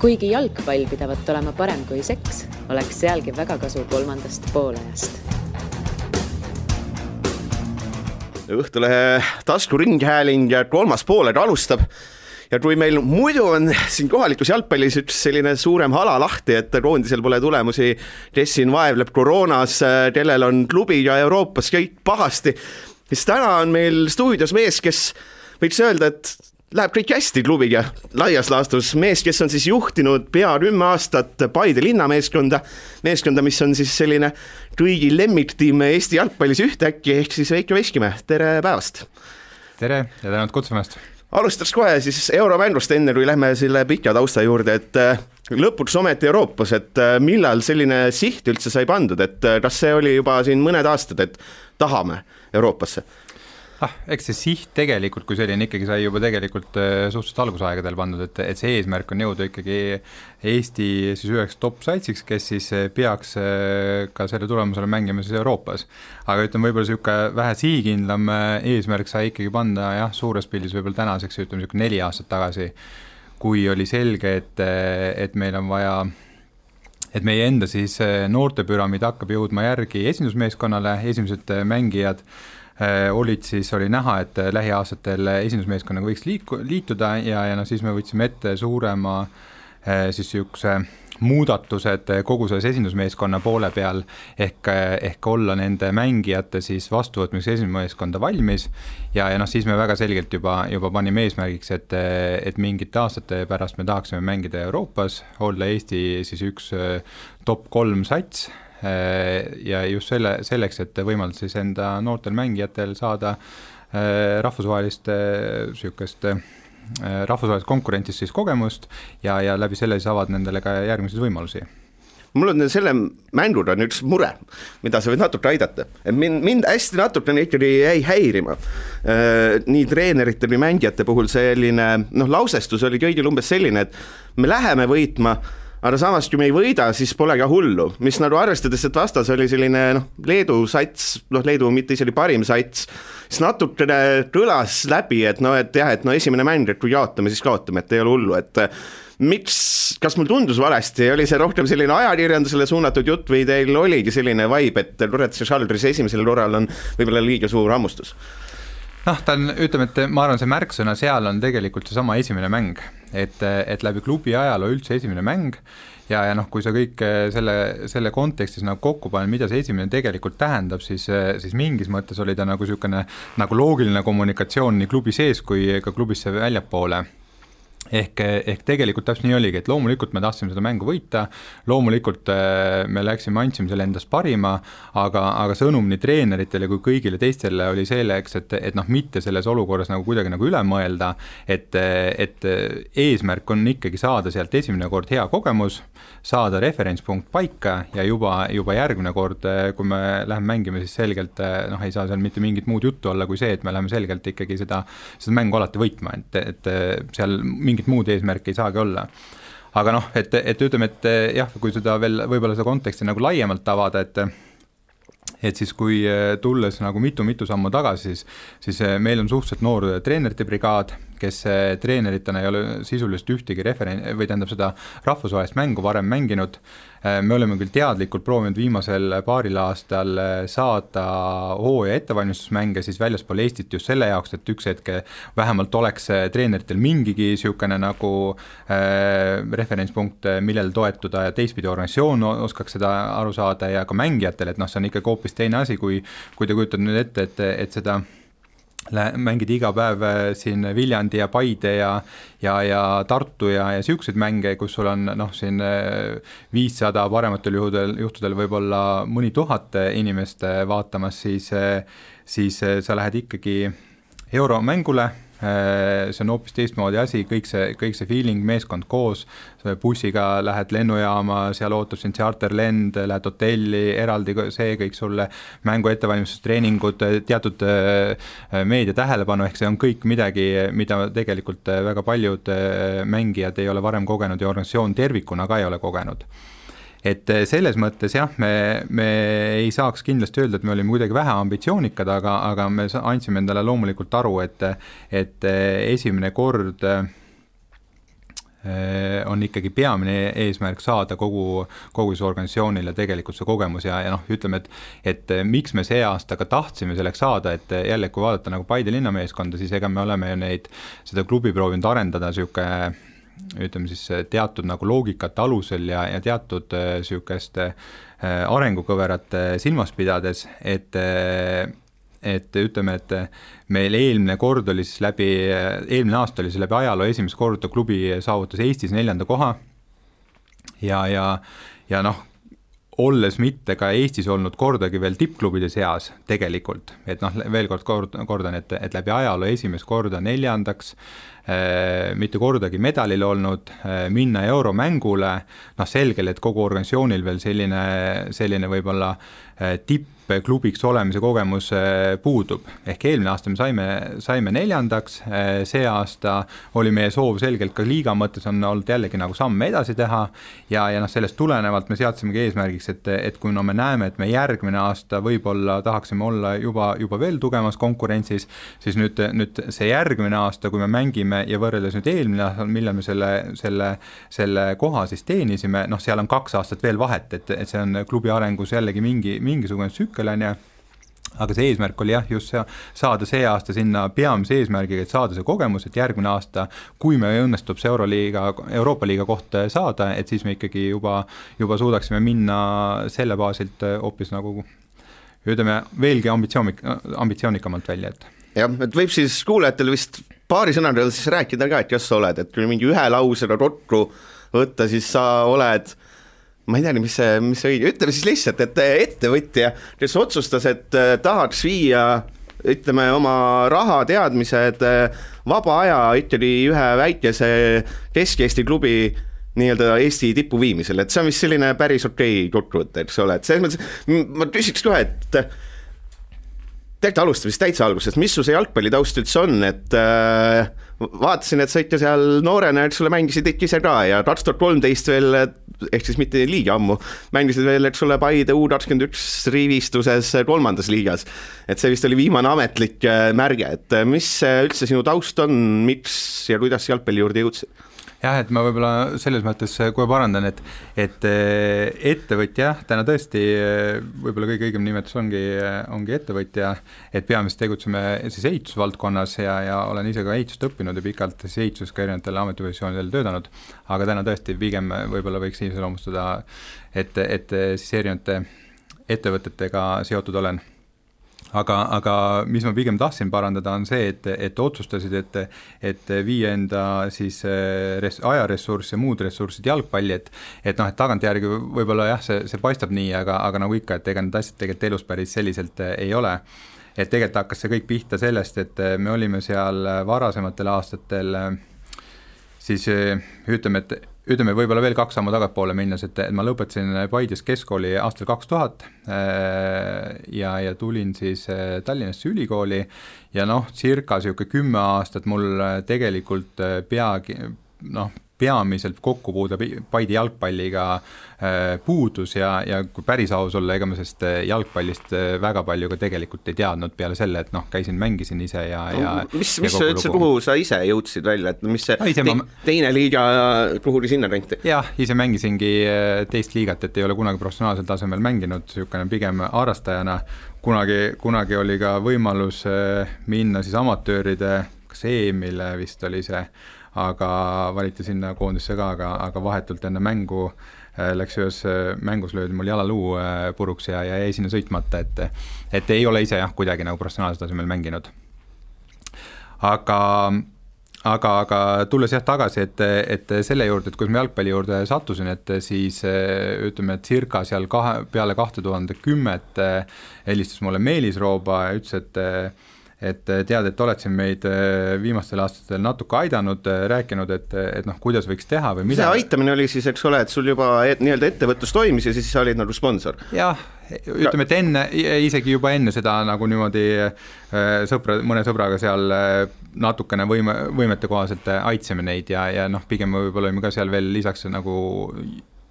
Kuigi jalgpall pidavat olema parem kui seks, oleks sealgi väga kasu kolmandast poolajast. Õhtulehe taskuringhääling ja kolmas pooled alustab. Ja kui meil muidu on siin kohalikus jalgpallis üks selline suurem hala lahti, et koondisel pole tulemusi, Tessin vaevleb koroonas, kellel on klubi ja Euroopas kõik pahasti, siis täna on meil stuudios mees, kes võiks öelda, et läheb kõik hästi klubiga laias laastus. Mees, kes on siis juhtinud pea 10 aastat Paide linnameeskonda, mis on siis selline kõigi lemmiktiim Eesti jalgpallis ühtäkki, ehk siis Veiko Veskimäe. Tere päevast! Tere ja tänud kutsumast! Alustaks kohe siis euromängust enne, kui lähme selle pika tausta juurde, et lõpuks ometi Euroopas, et millal selline siht üldse sai pandud, et kas see oli juba siin mõned aastad, et tahame Euroopasse? Eks see siht tegelikult, kui selline ikkagi sai juba tegelikult suhteliselt algusaegadel pandud, et see eesmärk on jõuda ikkagi Eesti siis üheks top-saitsiks, kes siis peaks ka selle tulemusele mängima siis Euroopas. Aga ütleme, võib-olla selline vähe sihikindlam eesmärk sai ikkagi panda suures pildis võib-olla tänaseks, ütleme 4 aastat tagasi, kui oli selge, et meil on vaja, et meie enda siis noortepüramiid hakkab jõudma järgi esindusmeeskonnale, esimesed mängijad oli näha, et lähiaastatel esindusmeeskonnaga võiks liituda ja siis me võtsime ette suurema siis üks muudatused kogu selles esindusmeeskonna poole peal ehk olla nende mängijate siis vastuvõtmiseks esindusmeeskonda valmis ja siis me väga selgelt juba panime eesmärgiks, et mingite aastate pärast me tahaksime mängida Euroopas, olla Eesti siis üks top 3 sats ja just selleks, et võimaldada siis enda noortel mängijatel saada rahvusvahelist konkurentist siis kogemust ja läbi selle siis avad nendele ka järgmiseid võimalusi. Mul on selle mängud on üks mure, mida sa võid natuke aidata. Mind hästi natuke ikkagi jäi häirima. Nii treenerite või mängijate puhul selline lausestus oli kõigil umbes selline, et me läheme võitma, aga samas, kui me ei võida, siis pole ka hullu, mis arvestades, et vastas oli selline Leedu sats, Leedu mitte isegi parim sats, siis natukene kõlas läbi, et esimene mäng, et kui jaotame, siis kaotame, et ei ole hullu, et miks, kas mul tundus valesti, oli see rohkem selline ajakirjandusele suunatud jutt või teil oligi selline vibe, et Loretsi Šaldris esimesel korral on võib-olla liiga suur hammustus? Ta on, ütleme, et ma arvan, see märksõna seal on tegelikult see sama esimene mäng, et läbi klubi ajaloo üldse esimene mäng ja kui sa kõik selle kontekstis kokku panen, mida see esimene tegelikult tähendab, siis mingis mõttes oli ta selline loogiline kommunikatsioon nii klubi sees kui ka klubisse väljapoole. Ehk tegelikult täpselt nii oligi, et loomulikult me tahtsime seda mängu võita, loomulikult me andsime selle endast parima, aga sõnum nii treeneritele kui kõigile teistele oli selleks, et mitte selles olukorras kuidagi üle mõelda, et eesmärk on ikkagi saada sealt esimene kord hea kogemus, saada referentspunkt paika ja juba järgmine kord, kui me läheme mängima, siis selgelt ei saa seal mitte mingit muud juttu olla kui see, et me läheme selgelt ikkagi seda mängu alati võitma, et seal mingit muud eesmärki ei saagi olla. Aga et ütleme, et kui seda veel võib-olla seda konteksti laiemalt avada, et siis kui tulles mitu sammu tagasi, siis meil on suhteliselt noor treenerite brigaad, kes treeneritena ei ole sisuliselt ühtegi seda rahvusvahelist mängu varem mänginud. Me oleme küll teadlikult proovinud viimasel paaril aastal saada hooaja ettevalmistusmänge siis väljaspool Eestit just selle jaoks, et üks hetke vähemalt oleks treeneritel mingigi niisugune referentspunkt, millel toetuda ja teistpidi organisatsioon oskaks seda aru saada ja ka mängijatel, et see on ikkagi hoopis teine asi, kui te kujutad nüüd ette, et seda mängid iga päev siin Viljandi ja Paide ja Tartu ja siukseid mänge, kus sul on siin 500 parematel juhtudel võib-olla mõni 1000 inimest vaatamas, siis sa lähed ikkagi euromängule, see on hoopis teistmoodi asi, kõik see feeling, meeskond koos, bussiga lähed lennujaama, seal ootab sind charterlend, lähed hotelli, eraldi see kõik sulle, mängu ettevalmistustreeningud, teatud meedia tähelepanu, ehk see on kõik midagi, mida tegelikult väga paljud mängijad ei ole varem kogenud ja organisatsioon tervikuna ka ei ole kogenud. Et selles mõttes me ei saaks kindlasti öelda, et me olime kuidagi vähe ambitsioonikad, aga me andsime endale loomulikult aru, et esimene kord on ikkagi peamine eesmärk saada kogu see organisatsioonile tegelikult see kogemus ja noh, ütleme, et miks me see aasta ka tahtsime selleks saada, et jälle, kui vaadata nagu Paide linnameeskonda, siis ega me oleme ju seda klubi proovinud arendada siuke, ütleme siis teatud nagu loogikate alusel ja teatud siukest arengukõverate silmas pidades, et ütleme, et meil eelmine aasta oli see läbi ajaloo esimest korda klubi saavutas Eestis 4. koha ja noh, olles mitte ka Eestis olnud kordagi veel tippklubide seas tegelikult, et noh, veel kordan, et läbi ajaloo esimest korda 4. mitte kordagi medalil olnud, minna euromängule, noh selgel, et kogu organisatsioonil veel selline võib-olla tippklubiks olemise kogemus puudub. Ehk eelmine aasta me saime 4. See aasta oli meie soov selgelt ka liiga mõttes on olnud jällegi nagu samme edasi teha ja noh, sellest tulenevalt me seadsimegi eesmärgiks, et kui me näeme, et me järgmine aasta võib-olla tahaksime olla juba veel tugevamas konkurentsis, siis nüüd see järgmine aasta, kui me mängime ja võrreldes nüüd eelmine aasta, millal me selle koha siis teenisime, noh, seal on 2 aastat veel vahet, et see on klubi arengus jällegi mingisugune tsükkel on ja, aga see eesmärk oli jah, just saada see aasta sinna peamise eesmärgiga, et saada see kogemus, et järgmine aasta, kui me õnnestub see Euroopa liiga koht saada, et siis me ikkagi juba suudaksime minna selle baasilt hoopis nagu, ütleme, veelgi ambitsioonikamalt välja, et jah, et võib siis kuulajatel vist paari sõnadel siis rääkida ka, et kas sa oled, et kui mingi ühe lausena rotru võtta, siis sa oled, ma ei tea, mis see õige, ütleme siis lihtsalt, et ettevõtja, kes otsustas, et tahaks viia, ütleme, oma raha teadmised, vaba aja ikkagi ühe väikese Kesk-Eesti klubi nii-öelda Eesti tippu viimisel, et see on vist selline päris okei kokkuvõte, eks ole, et selles mõttes ma küsiks kohe, et tegelikult alustame siis täitsa algusest, mis su see jalgpallitaust üldse on, et vaatasin, et sa ikka seal noorena, et sulle mängisid ikka ise ka ja 2013 veel, ehk siis mitte liiga ammu, mängisid veel, et sulle Paide U21 rivistuses 3. liigas, et see vist oli viimane ametlik märge, et mis üldse sinu taust on, miks ja kuidas jalgpalli juurde jõudsid? Jah, et ma võib-olla selles mõttes kohe parandan, et ettevõtja, täna tõesti võib-olla kõige õigem nimetus ongi ettevõtja, et peamiselt tegutseme siis ehitusvaldkonnas ja olen ise ka ehitust õppinud ja pikalt siis ehituses ka erinevatel ametipositsioonidel töötanud, aga täna tõesti pigem võib-olla võiks iseloomustada, et siis erinevate ettevõtetega seotud olen. Aga mis ma pigem tahtsin parandada on see, et otsustasid, et viia enda siis ajaressurss ja muud ressursid jalgpalli, et noh, et tagantjärgi võib-olla jah, see paistab nii, aga nagu ikka, et ega need asjad tegelikult elus päris selliselt ei ole. Et tegelikult hakkas see kõik pihta sellest, et me olime seal varasematel aastatel siis ütleme võib-olla veel 2 sammu tagapoole minnes, et ma lõpetasin Paides keskkooli aastal 2000 ja tulin siis Tallinnasse ülikooli ja noh, circa 10 aastat mul tegelikult peamiselt kokkupuude Paide jalgpalliga puudus ja kui päris aus olla, ega ma sest jalgpallist väga palju ka tegelikult ei teadnud peale selle, et noh, mängisin ise ja mis sa üldse, kuhu sa ise jõudsid välja, et mis see teine liiga, kuhu sinna renti? Jah, ise mängisingi teist liigat, et ei ole kunagi professionaalsel tasemel mänginud, niisugune pigem harrastajana, kunagi oli ka võimalus minna siis amatööride, kas EM-ile vist oli see, aga valiti sinna koondisse ka, aga vahetult enne mängu läks ühes mängus löödi mul jalaluu puruks ja jäi sinna sõitmata, et ei ole ise jah, kuidagi nagu professionaalsel tasemel mänginud. Aga tulles jah tagasi, et selle juurde, et kui ma jalgpalli juurde sattusin, et siis ütleme, et circa seal peale 2010 helistas mulle Meelis Rooba ja ütles, et tead, et oled siin meid viimastel aastatel natuke aidanud, rääkinud, et noh, kuidas võiks teha või mida. See aitamine oli siis, eks ole, et sul juba nii-öelda ettevõtlus toimis ja siis sa olid nagu sponsor. Jah, ütleme, et isegi juba enne seda nagu niimoodi mõne sõbraga seal natukene võimete kohaselt aitsime neid ja noh, pigem võib-olla olime ka seal veel lisaks nagu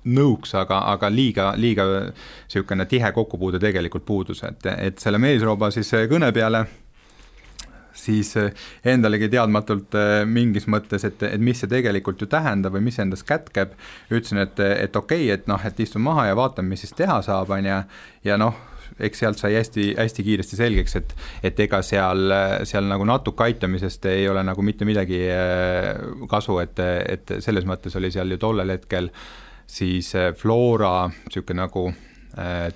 nõuks, aga liiga niisugune tihe kokkupuude tegelikult puudus, et selle Meelisrooba siis kõne peale siis endalegi teadmatult mingis mõttes, et mis see tegelikult ju tähendab või mis endas kätkeb, ütlesin, et okei, et noh, et istun maha ja vaatan, mis siis teha saab, ja noh, eks sealt sai hästi kiiresti selgeks, et ega seal nagu natuke aitamisest ei ole nagu mitte midagi kasu, et selles mõttes oli seal ju tollel hetkel siis Flora niisugune nagu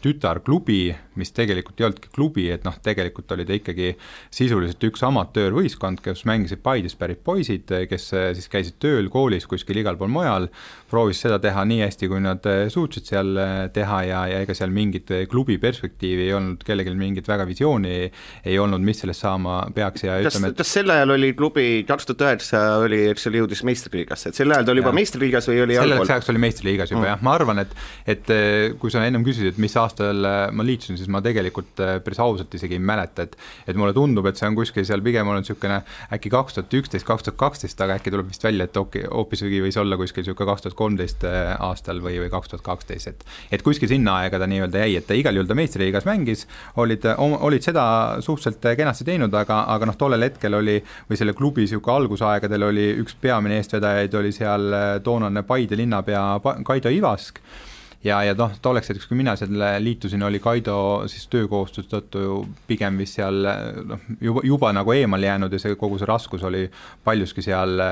tütarklubi, mis tegelikult ei olnudki klubi, et noh, tegelikult oli ta ikkagi sisuliselt üks amatöörvõistkond, kes mängisid Paidest pärit poisid, kes siis käisid tööl koolis kuskil igal pool mujal, proovis seda teha nii hästi, kui nad suutsid seal teha ja ega seal mingit klubi perspektiivi ei olnud, kellelgi mingit väga visiooni ei olnud, mis sellest saama peaks ja ütleme, kas sel ajal oli klubi 2009 oli, eks oli jõudis meistriliigasse, et sel ajal ta oli juba meistriliigas või oli allpool? Selleks oli meistriliigas juba jah, ma arvan, et kui sa ennem küsisid, et mis aastal ma liitusin, siis ma tegelikult päris ausalt isegi ei mäleta, et mulle tundub, et see on kuskil seal pigem olnud niisugune äkki 2011-2012, aga äkki tuleb vist välja, et hoopis võis olla kuskil niisugune 2013 aastal või 2012, et kuskil sinna aega ta nii-öelda jäi, et ta igal juhul ta meistriliigas mängis, olid seda suhteliselt kenasti teinud, aga noh, tollel hetkel oli, või selle klubi niisugune algusaegadel oli üks peamine eestvedajaid, oli seal toonane Paide linnapea Kaido Ivask, ja noh, tolleks hetkeks, kui mina selle liitusin, oli Kaido siis töökohustus tõttu pigem vist seal noh, juba nagu eemal jäänud ja kogu see raskus oli paljuski seal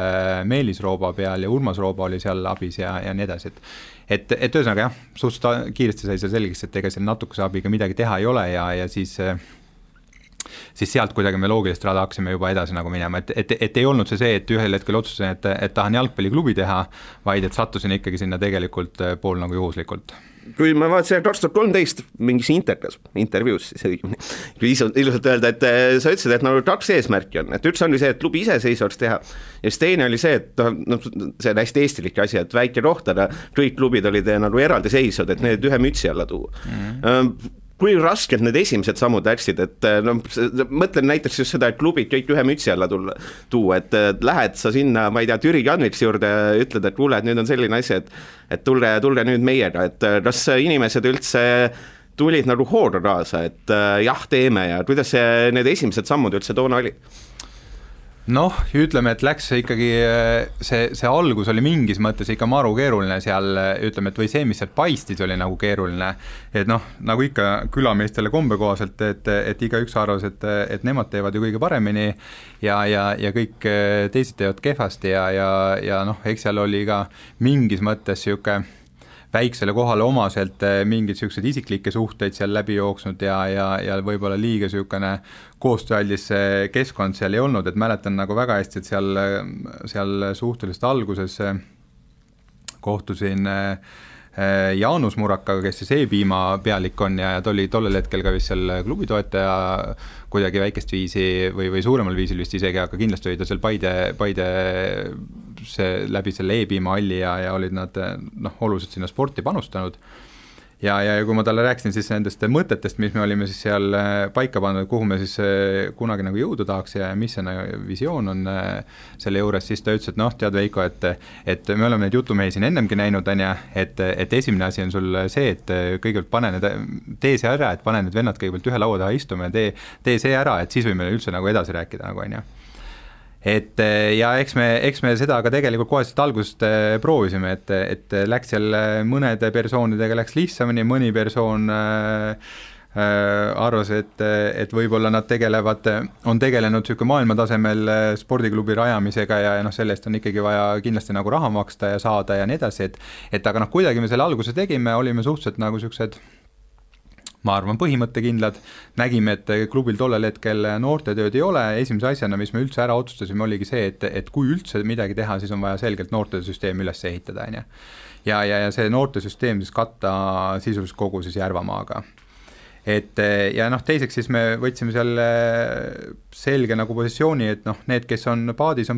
Meelis Rooba peal ja Urmas Rooba oli seal abis ja nii edasi, et ühesõnaga jah, suhteliselt kiiresti sai see selgeks, et ega seal natukese abiga midagi teha ei ole ja siis sealt kuidagi me loogilist rada hakkasime juba edasi nagu minema, et ei olnud see, et ühel hetkel otsustasin, et tahan jalgpalliklubi teha, vaid et sattusin ikkagi sinna tegelikult pool nagu juhuslikult. Kui ma vaatasin 2013 mingis intervjuus, kui ilusalt öelda, et sa ütlesid, et nagu 2 eesmärki on, et üks oli see, et klubi iseseisvaks teha ja siis teine oli see, et no, see on hästi eestilik asi, et väike rohtana, kõik klubid olid nagu eraldiseisvad, et need ühe mütsi alla tuua. Kui raskelt need esimesed sammud läksid, et no, mõtlen näiteks just seda, et klubid kõik ühe mütsi alla tuua, et lähed sa sinna, ma ei tea, Türi Kanviks juurde ja ütled, et kuule, et nüüd on selline asi, et tulge nüüd meiega, et kas inimesed üldse tulid nagu hooga kaasa, et jah, teeme ja kuidas need esimesed sammud üldse toona oli? Noh, ütleme, et läks ikkagi, see algus oli mingis mõttes ikka maru keeruline seal, ütleme, et või see, mis seal paistis, oli nagu keeruline, et noh, nagu ikka külameestele kombekohaselt, et iga üks arvas, et nemad teevad ju kõige paremini ja kõik teised teevad kehvasti ja noh, eks seal oli ka mingis mõttes siuke väiksele kohale omaselt mingid sellised isiklikke suhteid seal läbi jooksnud ja võib-olla liiga niisugune koostööaldis keskkond seal ei olnud, et mäletan nagu väga hästi, et seal suhteliselt alguses kohtusin Jaanus Murakaga, kes siis E-piima pealik on ja ta oli tollel hetkel ka vist seal klubi toetaja kuidagi väikest viisi või suuremal viisil vist isegi, aga kindlasti oli ta seal Paide läbi selle E-piima alli ja olid nad noh, oluliselt sinna sporti panustanud. Ja kui ma talle rääkisin siis nendest mõtetest, mis me olime siis seal paika pannud, kuhu me siis kunagi nagu jõuda tahaks ja mis see visioon on selle juures, siis ta ütles, et noh, tead Veiko, et me oleme neid jutumehi siin ennemgi näinud, et esimene asi on sul see, et kõigepealt tee see ära, et pane need vennad kõigepealt ühe laua taha istuma ja tee see ära, et siis võime üldse nagu edasi rääkida nagu on ju. Et ja eks me seda ka tegelikult koheselt algusest proovisime, et läks seal mõnede persoonidega läks lihtsamini, mõni persoon arvas, et võib-olla nad on tegelenud niisugune maailmatasemel spordiklubi rajamisega ja noh, sellest on ikkagi vaja kindlasti nagu raha maksta ja saada ja nii edasi, et aga noh, kuidagi me selle alguse tegime, olime suhteliselt nagu niisugused ma arvan, põhimõttekindlad, nägime, et klubil tollel hetkel noortetööd ei ole, esimese asjana, mis me üldse ära otsustasime, oligi see, et kui üldse midagi teha, siis on vaja selgelt noortesüsteem üles ehitada, ja see noortesüsteem siis katta sisuliselt kogu siis Järvamaaga. Et ja noh, teiseks siis me võtsime seal selge nagu positsiooni, et noh, need, kes on paadis,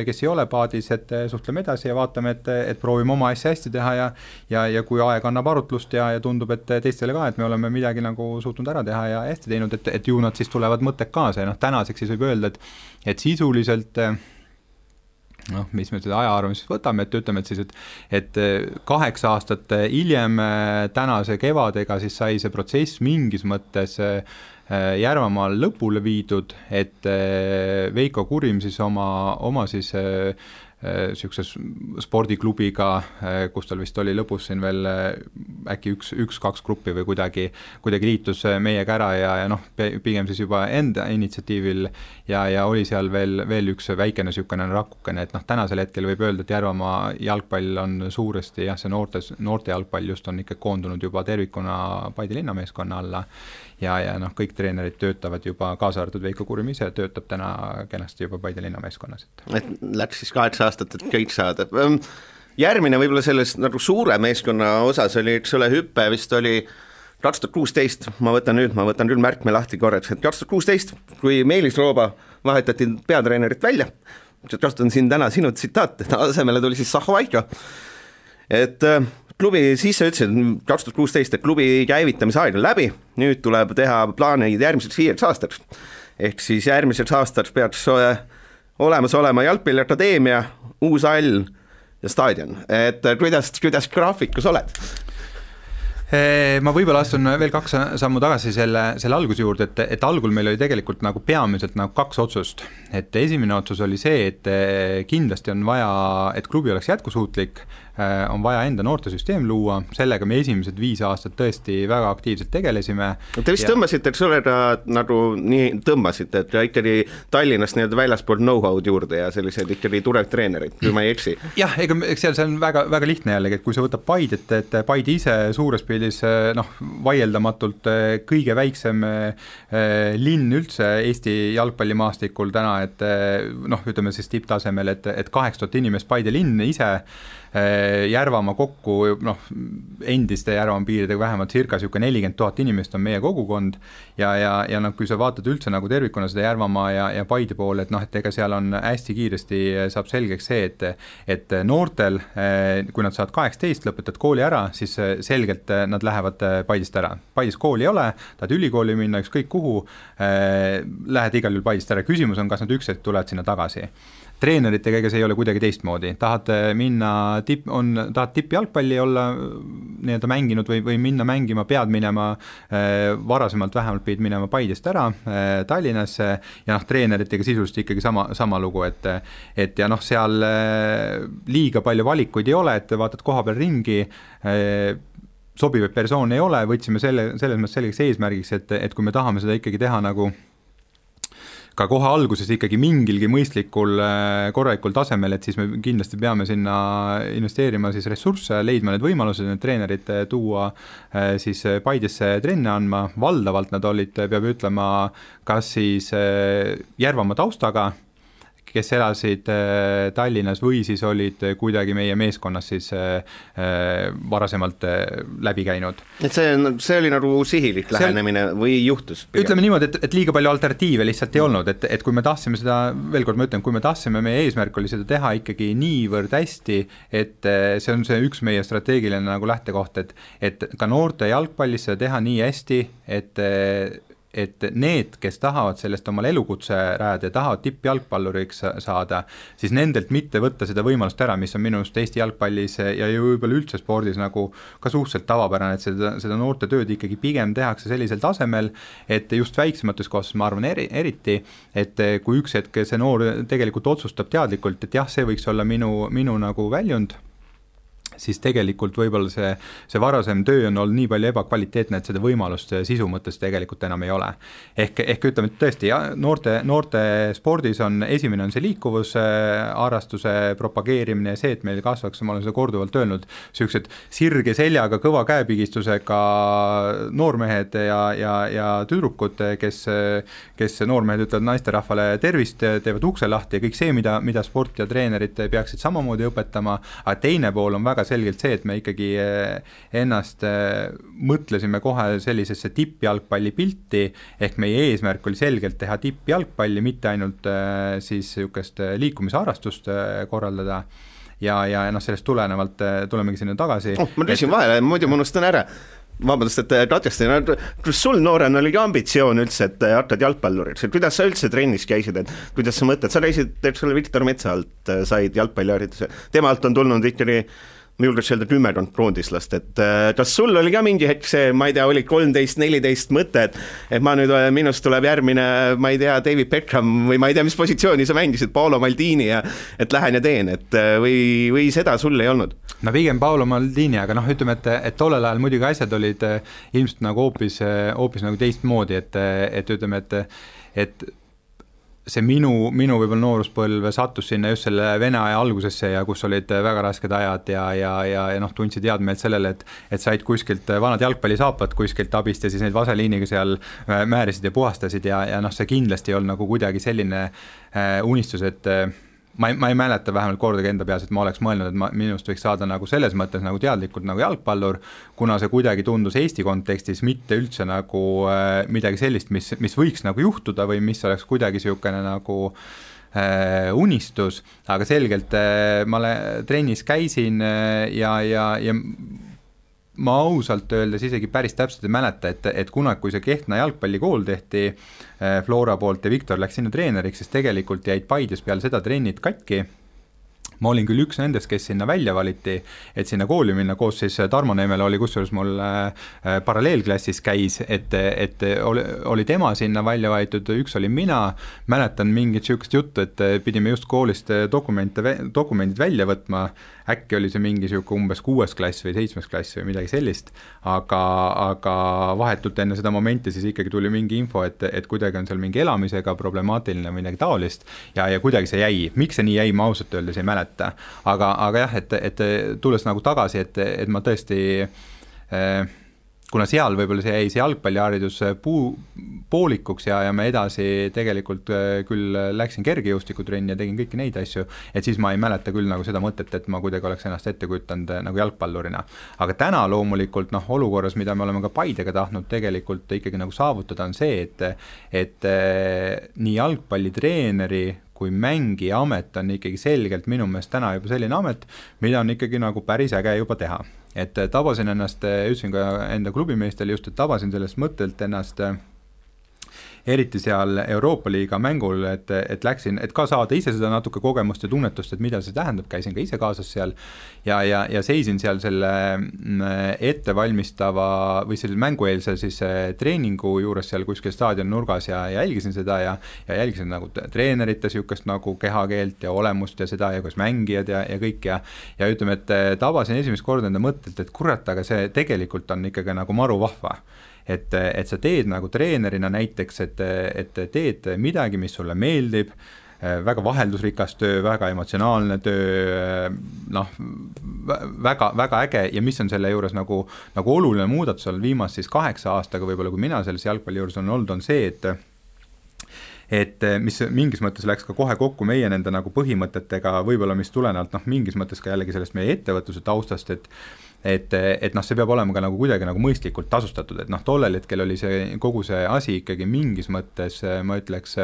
kes ei ole paadis, et suhtleme edasi ja vaatame, et proovime oma asja hästi teha ja kui aeg annab arutlust ja tundub, et teistele ka, et me oleme midagi nagu suutnud ära teha ja hästi teinud, et ju nad siis tulevad mõtted kaasa ja noh, tänaseks siis võib öelda, et sisuliselt noh, mis me seda ajaarvamist võtame, et ütleme, et siis, et 8 aastat hiljem tänase kevadega siis sai see protsess mingis mõttes Järvamaal lõpule viidud, et Veiko Kurim siis oma siis niisuguse spordiklubiga, kus tal vist oli lõpus siin veel äkki üks-kaks gruppi või kuidagi liitus meiega ära ja noh, pigem siis juba enda initsiatiivil ja oli seal veel üks väikene niisugune rakukene, et noh, tänasel hetkel võib öelda, et Järvamaa jalgpall on suuresti jah, see noorte jalgpall just on ikka koondunud juba tervikuna Paide linnameeskonna alla ja noh, kõik treenerid töötavad juba, kaasa arvatud Veiko Kurim ise töötab täna kenasti juba Paide linnameeskonnas. Et läks siis 8 aastat, et kõik saada. Järgmine võib-olla selles nagu suure meeskonna osas oli, eks ole, hüppe vist oli 2016, ma võtan küll märkme lahti korraks, et 2016, kui Meelis Rooba vahetati peatreenerit välja, kasutan siin täna sinu tsitaat, asemele tuli siis Saho Vaiko, et klubi sisse ütlesid 2016, et klubi käivitamise aeg on läbi, nüüd tuleb teha plaanid järgmiseks 5 aastaks, ehk siis järgmiseks aastaks peaks olemas olema jalgpalliakadeemia, uus hall ja staadion, et kuidas graafikus oled? Ma võib-olla astun veel 2 sammu tagasi selle alguse juurde, et algul meil oli tegelikult nagu peamiselt nagu 2 otsust, et esimene otsus oli see, et kindlasti on vaja, et klubi oleks jätkusuutlik, on vaja enda noortesüsteem luua, sellega me esimesed 5 aastat tõesti väga aktiivselt tegelesime. Te vist tõmbasite, et sulle nagu nii tõmbasite, et ikkagi Tallinnast nii-öelda väljaspool know-how'd juurde ja sellised ikkagi turev treenerid, kui ma ei eksi. Jah, eks seal see on väga, väga lihtne jällegi, et kui sa võtab Paidet, et Paide ise suures pildis noh, vaieldamatult kõige väiksem linn üldse Eesti jalgpallimaastikul täna, et noh, ütleme siis tipptasemel, et 8000 inimest Paide linn ise Järvamaa kokku, noh, endiste Järvamaa piiridega vähemalt circa 40 000 inimest on meie kogukond ja noh, kui sa vaatad üldse nagu tervikuna seda Järvamaa ja Paide poole, et noh, et ega seal on hästi kiiresti saab selgeks see, et noortel, kui nad saavad 18, lõpetad kooli ära, siis selgelt nad lähevad Paidest ära. Paides kooli ei ole, tahad ülikooli minna, ükskõik kuhu, lähed igal juhul Paidest ära. Küsimus on, kas nad ükskord tulevad sinna tagasi. Treeneritega ega see ei ole kuidagi teistmoodi, tahad tippjalgpalli olla nii-öelda mänginud või minna mängima, pead minema, varasemalt vähemalt pidid minema Paidest ära Tallinnasse ja noh, treeneritega sisuliselt ikkagi sama lugu, et ja noh, seal liiga palju valikuid ei ole, et vaatad koha peal ringi, sobivaid persoon ei ole, võtsime selles mõttes selgeks eesmärgiks, et kui me tahame seda ikkagi teha nagu ka kohe alguses ikkagi mingilgi mõistlikul korralikul tasemel, et siis me kindlasti peame sinna investeerima siis ressursse, leidma need võimalused, need treenerid tuua siis Paidesse trenne andma, valdavalt nad olid, peab ütlema, kas siis Järvamaa taustaga, kes elasid Tallinnas või siis olid kuidagi meie meeskonnas siis varasemalt läbi käinud. Et see oli nagu sihilik lähenemine või juhtus? Ütleme niimoodi, et liiga palju alternatiive lihtsalt ei olnud, et kui me tahtsime seda, veel kord ma ütlen, kui me tahtsime, meie eesmärk oli seda teha ikkagi niivõrd hästi, et see on see üks meie strateegiline nagu lähtekoht, et ka noorte jalgpallis seda teha nii hästi, et need, kes tahavad sellest omal elukutse rajada ja tahavad tippjalgpalluriks saada, siis nendelt mitte võtta seda võimalust ära, mis on minu arust Eesti jalgpallis ja võib-olla üldse spordis nagu ka suhteliselt tavapärane, et seda noorte tööd ikkagi pigem tehakse sellisel tasemel, et just väiksemates kohtades, ma arvan eriti, et kui üks hetk see noor tegelikult otsustab teadlikult, et jah, see võiks olla minu nagu väljund, siis tegelikult võib-olla see varasem töö on olnud nii palju ebakvaliteetne, et seda võimalust sisu mõttes tegelikult enam ei ole. Ehk ütleme, et tõesti, noorte spordis esimene on see liikuvus, harrastuse propageerimine ja see, et meil kasvaks, ma olen seda korduvalt öelnud, sellised sirge seljaga, kõva käepigistusega noormehed ja tüdrukud, kes noormehed ütlevad naisterahvale tervist, teevad ukse lahti ja kõik see, mida sport ja treenerid peaksid samamoodi õpetama, aga teine pool on väga selgelt see, et me ikkagi ennast mõtlesime kohe sellisesse tippjalgpalli pilti, ehk meie eesmärk oli selgelt teha tippjalgpalli, mitte ainult siis niisugust liikumisharrastust korraldada ja noh, sellest tulenevalt tulemegi sinna tagasi. Ma küsin vahele, muidu ma unustan ära. vabandust, et katkestan, kas sul noorena oli ka ambitsioon üldse, et hakkad jalgpalluriks, et kuidas sa üldse trennis käisid, et kuidas sa mõtled, sa käisid, eks ole, Viktor Metsa alt said jalgpallihariduse, tema alt on tulnud ikkagi ma julgeks öelda 10 kroondislast, et kas sul oli ka mingi hetk see, ma ei tea, oli 13-14 mõte, et ma nüüd, minust tuleb järgmine, ma ei tea, David Beckham või ma ei tea, mis positsiooni sa mängisid, Paolo Maldini ja et lähen ja teen, et või seda sul ei olnud? No pigem Paolo Maldini, aga ütleme, et tollel ajal muidugi asjad olid ilmselt nagu hoopis nagu teistmoodi, et ütleme, et see minu võib-olla nooruspõlv sattus sinna just selle Vene aja algusesse ja kus olid väga rasked ajad ja tundsid teadmeelt sellele, et said kuskilt vanad jalgpallisaapad kuskilt abist ja siis neid vaseliiniga seal määrisid ja puhastasid ja see kindlasti ei olnud nagu kuidagi selline unistus, et ma ei mäleta vähemalt kordagi enda peas, et ma oleks mõelnud, et minust võiks saada nagu selles mõttes nagu teadlikult nagu jalgpallur, kuna see kuidagi tundus Eesti kontekstis mitte üldse nagu midagi sellist, mis võiks nagu juhtuda või mis oleks kuidagi niisugune nagu unistus, aga selgelt ma trennis käisin ja ma ausalt öeldes isegi päris täpselt ei mäleta, et kunagi, kui see Kehtna jalgpallikool tehti Flora poolt ja Viktor läks sinna treeneriks, siis tegelikult jäid Paides peale seda trennid katki. Ma olin küll üks nendest, kes sinna välja valiti, et sinna kooli minna, koos siis Tarmo Neemel oli kusjuures mul paralleelklassis käis, et oli tema sinna välja valitud, üks oli mina, mäletan mingit niisugust juttu, et pidime just koolist dokumendid välja võtma, äkki oli see mingi niisugune umbes 6. klass või 7. klass või midagi sellist, aga vahetult enne seda momenti siis ikkagi tuli mingi info, et kuidagi on seal mingi elamisega problemaatiline või midagi taolist ja kuidagi see jäi. Miks see nii jäi, ma ausalt öeldes ei mäleta. Aga jah, et tulles nagu tagasi, et ma tõesti kuna seal võib-olla see jäi see jalgpalliharidus poolikuks ja me edasi tegelikult küll läksin kergejõustikutrenni ja tegin kõiki neid asju, et siis ma ei mäleta küll nagu seda mõtet, et ma kuidagi oleks ennast ette kujutanud nagu jalgpallurina. Aga täna loomulikult olukorras, mida me oleme ka Paidega tahtnud tegelikult ikkagi nagu saavutada, on see, et nii jalgpallitreeneri kui mängija amet on ikkagi selgelt minu meelest täna juba selline amet, mida on ikkagi nagu päris äge juba teha. Et tabasin ennast, ütlesin ka enda klubimeestele just, et tabasin sellest mõttelt ennast eriti seal Euroopa Liiga mängul, et läksin, et ka saada ise seda natuke kogemust ja tunnetust, et mida see tähendab, käisin ka ise kaasas seal ja seisin seal selle ettevalmistava või selle mängueelse siis treeningu juures seal kuskil staadioni nurgas ja jälgisin seda ja jälgisin nagu treenerite niisugust nagu kehakeelt ja olemust ja seda ja kuidas mängijad ja kõik ja ütleme, et tabasin esimest korda enda mõttelt, et kurat, aga see tegelikult on ikkagi nagu maru vahva. Et sa teed nagu treenerina näiteks, et teed midagi, mis sulle meeldib, väga vaheldusrikas töö, väga emotsionaalne töö, väga äge ja mis on selle juures nagu oluline muudatus on viimast siis 8 aastaga võib-olla, kui mina selles jalgpalli juures on olnud, on see, et mis mingis mõttes läks ka kohe kokku meie nende nagu põhimõtetega, võib-olla mis tulenevalt mingis mõttes ka jällegi sellest meie ettevõtluse taustast, et see peab olema ka nagu kuidagi nagu mõistlikult tasustatud, et tollel hetkel oli see kogu see asi ikkagi mingis mõttes, ma ütleks,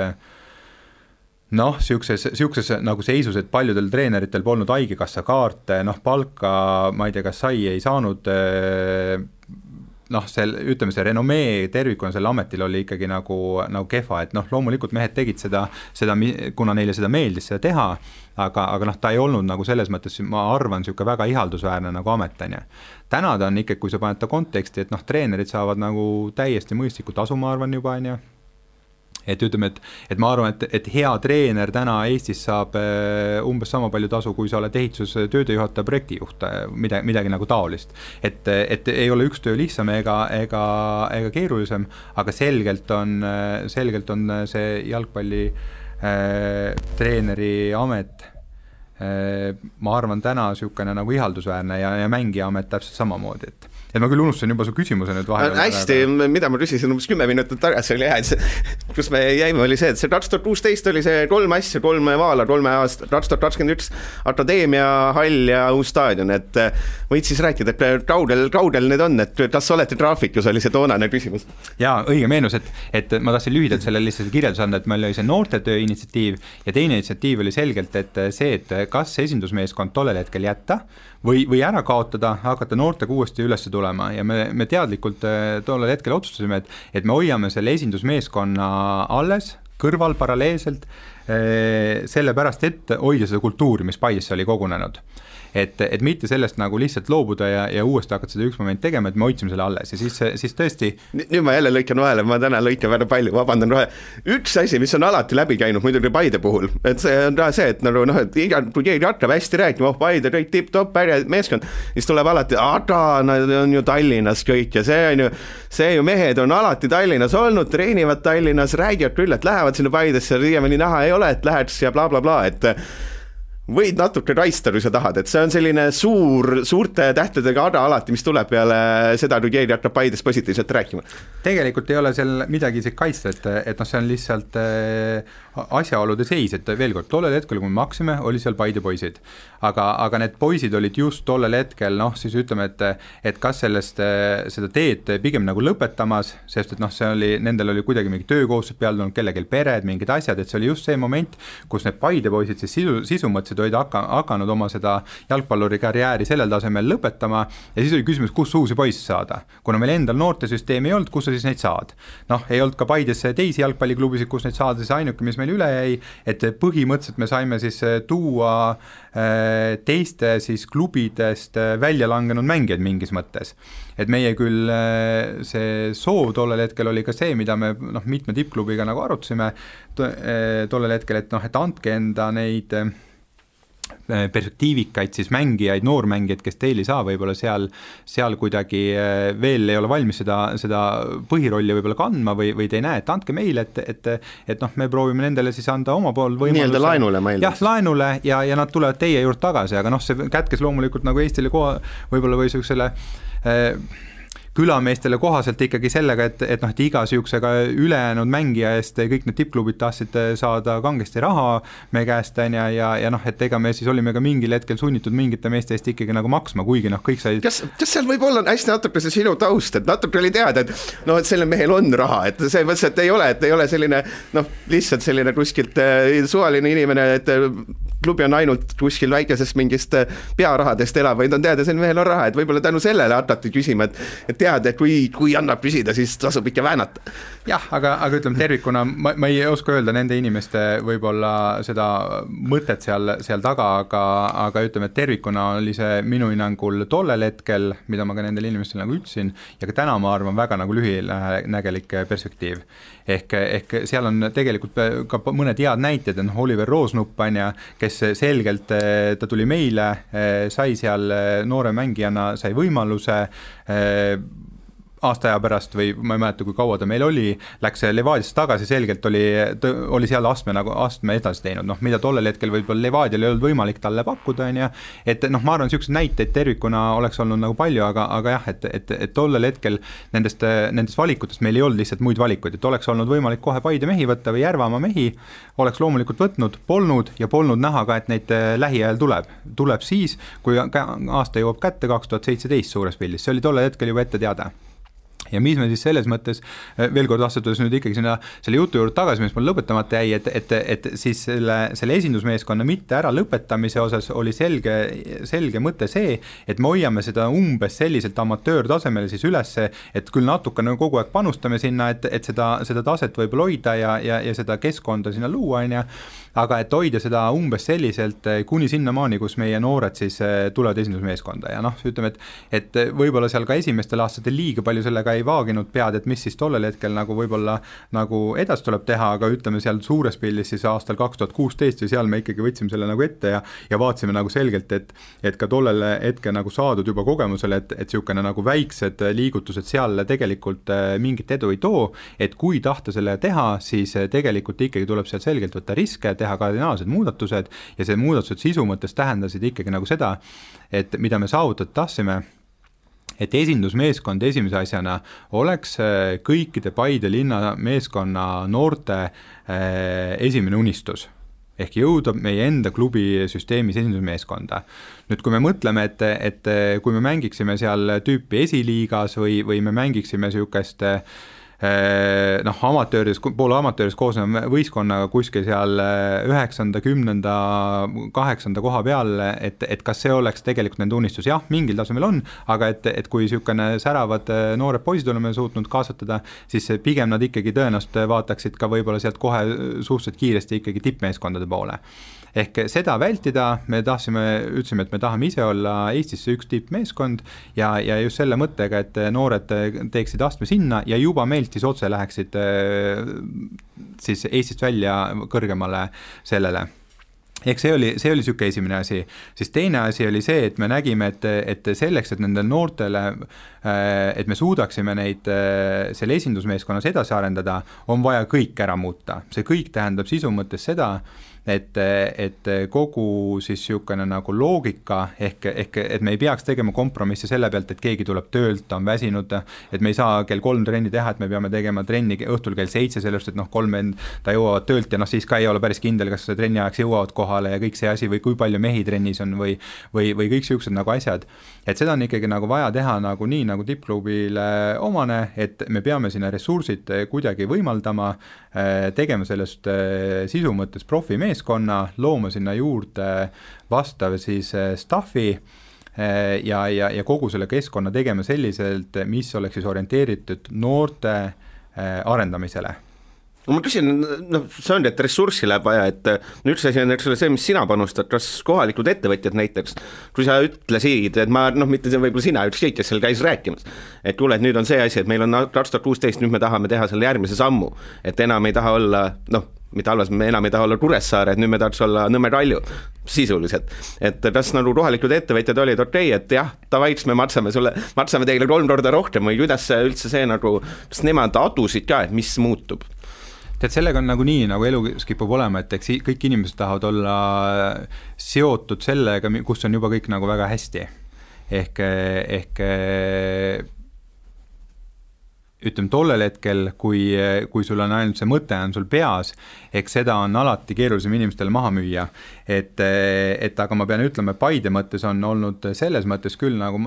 siukses nagu seisus, et paljudel treeneritel polnud haigekassa kaarte, palka, ma ei tea, kas ei saanud, ütleme see renomee tervikuna selle ametil oli ikkagi nagu kehva, et loomulikult mehed tegid seda, kuna neile seda meeldis seda teha, aga ta ei olnud nagu selles mõttes, ma arvan, niisugune väga ihaldusväärne nagu ametanja. Täna ta on ikkagi, kui sa paned ta konteksti, et treenerid saavad nagu täiesti mõistliku tasu, ma arvan juba, on ju. Et ütleme, et ma arvan, et hea treener täna Eestis saab umbes sama palju tasu, kui sa oled ehitus töödejuhataja projektijuht, midagi nagu taolist. Et ei ole üks töö lihtsam ega keerulisem, aga selgelt on see jalgpalli treeneri amet, ma arvan, täna niisugune nagu ihaldusväärne ja mängija amet täpselt samamoodi, et ma küll unustasin juba su küsimuse nüüd vahel. Hästi, mida ma küsisin umbes 10 minutit tagasi oli jah, et kus me jäime, oli see, et see 2016 oli see 3 asja, 3 vaala, 3 aasta, 2021 akadeemia, hall ja uus staadion, et võid siis rääkida, et kaudel need on, et kas olete graafikus, oli see toonane küsimus? Jaa, õige meenus, et ma tahtsin lühidalt selle lihtsalt kirjeldus anda, et meil oli see noortetöö initsiatiiv ja teine initsiatiiv oli selgelt, et see, et kas esindusmeeskond tollel hetkel jätta või ära kaotada, hakata noortega uuesti üles tulema tulema ja me teadlikult tollel hetkel otsustasime, et me hoiame selle esindusmeeskonna alles, kõrval paralleelselt, sellepärast, et hoida seda kultuuri, mis Paidesse oli kogunenud. Et mitte sellest nagu lihtsalt loobuda ja uuesti hakata seda üks moment tegema, et me hoidsime selle alles ja siis tõesti... Nüüd ma jälle lõikan vahele, ma täna lõikan väga palju, vabandan rohe. Üks asi, mis on alati läbi käinud muidugi Paide puhul, et see on see, et nagu et kui keegi hakkab hästi rääkima, Paide kõik tipp-top, meeskond, siis tuleb alati, nad on ju Tallinnas kõik ja see ju mehed on alati Tallinnas olnud, treenivad Tallinnas, räägivad küll, et lähevad sinna Paidesse, siiamaani näha ei ole, et läheks ja bla bla bla, et võid natuke raista, kui sa tahad, et see on selline suurte tähtedega ada alati, mis tuleb peale seda, kui keegi hakkab Paides positiivselt rääkima. Tegelikult ei ole seal midagi isegi kaitsta, et see on lihtsalt asjaolude seis, et veel kord, tollel hetkel, kui me maksime, oli seal Paide poisid. Aga need poisid olid just tollel hetkel, siis ütleme, et kas seda teed pigem nagu lõpetamas, sest et see oli, nendel oli kuidagi mingi töökohustused peal tulnud, kellegil pered, mingid asjad, et see oli just see moment, kus need Paide poisid siis sisu mõtlesid, olid hakanud oma seda jalgpalluri karjääri sellel tasemel lõpetama ja siis oli küsimus, kus uusi poisse saada. Kuna meil endal noortesüsteemi ei olnud, kus sa siis neid saad? Ei olnud ka Paides teisi jalgpalliklubisid, kus neid saada, siis ainuke, mis meil üle jäi, et põhimõtteliselt me saime siis tuua teiste siis klubidest välja langenud mängijaid mingis mõttes. Et meie küll see soov tollel hetkel oli ka see, mida me mitme tippklubiga nagu arutasime tollel hetkel, et andke enda neid perspektiivikaid siis mängijaid, noormängijaid, kes teil ei saa võib-olla seal kuidagi veel ei ole valmis seda põhirolli võib-olla kandma või te ei näe, et andke meile, et me proovime nendele siis anda oma pool võimaluse. Nii-öelda laenule meil. Jah, laenule ja nad tulevad teie juurde tagasi, aga see kätkes loomulikult nagu Eestile võib-olla või selle külameestele kohaselt ikkagi sellega, et iga sihukesega ülejäänud mängija eest kõik need tippklubid tahtsid saada kangesti raha me käest ja et ega me siis olime ka mingil hetkel sunnitud mingite meeste eest ikkagi nagu maksma, kuigi kõik said... Kas seal võib olla hästi natuke see sinu taust, et natuke oli teada, et et selle mehel on raha, et see mõttes, et ei ole selline lihtsalt selline kuskilt suvaline inimene, et klubi on ainult kuskil väikesest mingist pearahadest elab, vaid on teada, see mehel on raha, et võib-olla tänu sellele hakati küsima, et teada, et kui annab küsida, siis tasub ikka väänata. Jah, aga ütleme tervikuna, ma ei oska öelda nende inimeste võib-olla seda mõtet seal taga, aga ütleme, et tervikuna oli see minu hinnangul tollel hetkel, mida ma ka nendele inimestele nagu ütlesin, ja ka täna ma arvan väga nagu lühinägelik perspektiiv. Ehk seal on tegelikult ka mõned head näited, Oliver Roosnupp, kes selgelt, ta tuli meile, sai seal noore mängijana, sai võimaluse aasta aja pärast või ma ei mäleta, kui kaua ta meil oli, läks Levadiasse tagasi, selgelt oli seal astme edasi teinud, mida tollel hetkel võib-olla Levadial ei olnud võimalik talle pakkuda, et ma arvan, niisugused näiteid tervikuna oleks olnud nagu palju, aga jah, et tollel hetkel nendest valikutest meil ei olnud lihtsalt muid valikuid, et oleks olnud võimalik kohe Paide mehi võtta või Järvamaa mehi, oleks loomulikult võtnud, polnud näha ka, et neid lähiajal tuleb siis, kui aasta jõuab kätte 2017 suures pildis, see oli tollel hetkel juba ette teada. Ja mis me siis selles mõttes, veel kord astudes nüüd ikkagi selle jutu juurde tagasi, mis mul lõpetamata jäi, et siis selle esindusmeeskonna mitte ära lõpetamise osas oli selge mõte see, et me hoiame seda umbes selliselt amatöörtasemele siis üles, et küll natukene kogu aeg panustame sinna, et seda taset võib hoida ja seda keskkonda sinna luua, aga et hoida seda umbes selliselt kuni sinnamaani, kus meie noored siis tulevad esindusmeeskonda ja ütleme, et võib-olla seal ka esimestel aastatel liiga palju sellega ei vaaginud pead, et mis siis tollel hetkel nagu võib-olla nagu edasi tuleb teha, aga ütleme seal suures pildis siis aastal 2016 ja seal me ikkagi võtsime selle nagu ette ja vaatasime nagu selgelt, et ka tollel hetkel nagu saadud juba kogemusele, et niisugune nagu väiksed liigutused seal tegelikult mingit edu ei too, et kui tahta selle teha, siis tegelikult ikkagi tuleb seal selgelt võtta riske, teha kardinaalsed muudatused ja see muudatused sisu mõttes tähendasid ikkagi nagu seda, et mida me saavutada tahtsime, et esindusmeeskond esimese asjana oleks kõikide Paide linna meeskonna noorte esimene unistus ehk jõuda meie enda klubi süsteemis esindusmeeskonda. Nüüd, kui me mõtleme, et kui me mängiksime seal tüüpi esiliigas või me mängiksime niisugust poole amatööris koosneva võistkonnaga kuskil seal 9., 10., 8. koha peal, et kas see oleks tegelikult nende unistus, jah, mingil tasemel on, aga et kui niisugune säravad noored poisid oleme suutnud kasvatada, siis pigem nad ikkagi tõenäoliselt vaataksid ka võib-olla sealt kohe suhteliselt kiiresti ikkagi tippmeeskondade poole. Ehk seda vältida, ütlesime, et me tahame ise olla Eestisse üks tippmeeskond ja just selle mõttega, et noored teeksid astme sinna ja juba meilt siis otse läheksid siis Eestist välja kõrgemale sellele. Ehk see oli niisugune esimene asi. Siis teine asi oli see, et me nägime, et selleks, et nendel noortele, et me suudaksime neid selle esindusmeeskonnas edasi arendada, on vaja kõik ära muuta. See kõik tähendab sisu mõttes seda, et kogu siis niisugune nagu loogika ehk et me ei peaks tegema kompromisse selle pealt, et keegi tuleb töölt, ta on väsinud, et me ei saa kell 3 trenni teha, et me peame tegema trenni õhtul kell 7, sellest, et 3 ta jõuavad töölt ja siis ka ei ole päris kindel, kas trenni ajaks jõuavad kohale ja kõik see asi või kui palju mehi trennis on või kõik niisugused nagu asjad. Et seda on ikkagi nagu vaja teha nagu nii nagu tippklubile omane, et me peame sinna ressursid kuidagi võimaldama, tegema sellest sisu mõttes profimeeskonna, looma sinna juurde vastav siis staffi ja kogu selle keskkonna tegema selliselt, mis oleks siis orienteeritud noorte arendamisele. Ma küsin, see on, et ressurssi läheb vaja, et üks asi on see, mis sina panustad, kas kohalikud ettevõtjad näiteks, kui sa ütlesid, et mitte see võib-olla sina ütlesid, kes seal käis rääkimas, et kuule, et nüüd on see asi, et meil on 2016, nüüd me tahame teha selle järgmise sammu, et enam ei taha olla, mitte halvas, me enam ei taha olla Kuressaare, et nüüd me tahaks olla Nõmme Kalju sisuliselt, et kas nagu kohalikud ettevõtjad olid okei, et jah, tavaiks me maksame teile 3 korda rohkem või kuidas üldse see nagu, kas nemad adusid ka, et mis muutub? Tead, sellega on nagu nii, nagu elus kipub olema, et eks kõik inimesed tahavad olla seotud sellega, kus on juba kõik nagu väga hästi. Ehk ütleme tollel hetkel, kui sul on ainult see mõte on sul peas, eks seda on alati keerulisem inimestele maha müüa. Et aga ma pean ütlema, Paide mõttes on olnud selles mõttes küll nagu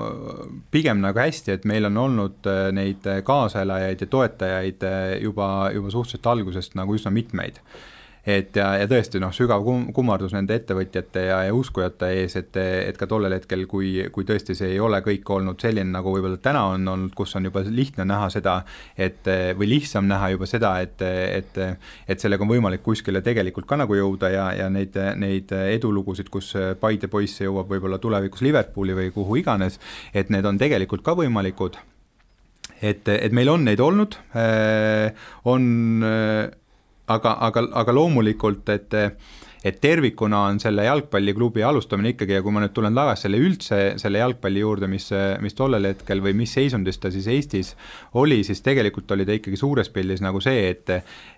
pigem nagu hästi, et meil on olnud neid kaaselajaid ja toetajaid juba suhteliselt algusest nagu üsna mitmeid. Ja tõesti sügav kummardus nende ettevõtjate ja uskujate ees, et ka tollel hetkel, kui tõesti see ei ole kõik olnud selline, nagu võib-olla täna on olnud, kus on juba lihtne näha seda, või lihtsam näha juba seda, et sellega on võimalik kuskile tegelikult ka nagu jõuda ja neid edulugusid, kus Paide poisse jõuab võib-olla tulevikus Liverpooli või kuhu iganes, et need on tegelikult ka võimalikud. Et meil on neid olnud, aga loomulikult, et tervikuna on selle jalgpalliklubi alustamine ikkagi ja kui ma nüüd tulen tagasi selle jalgpalli juurde, mis tollel hetkel või mis seisundis ta siis Eestis oli, siis tegelikult oli ta ikkagi suures pildis nagu see,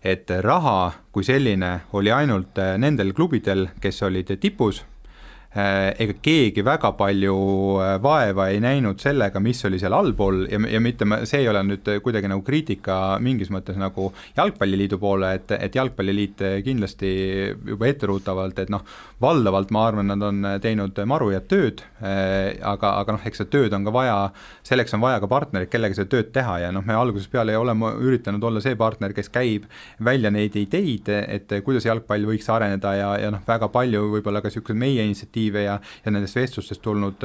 et raha kui selline oli ainult nendel klubidel, kes olid tipus, ega keegi väga palju vaeva ei näinud sellega, mis oli seal allpool ja mitte, see ei ole nüüd kuidagi nagu kriitika mingis mõttes nagu jalgpalliliidu poole, et jalgpalliliit kindlasti juba etteruutavalt, et valdavalt ma arvan, nad on teinud maru ja tööd, aga eks see tööd on ka vaja, selleks on vaja ka partnerid, kellega see tööd teha ja me alguses peale oleme üritanud olla see partner, kes käib välja neid ideid, et kuidas jalgpall võiks areneda ja väga palju võib-olla ka niisugused meie initsiatiive ja nendest vestlustest tulnud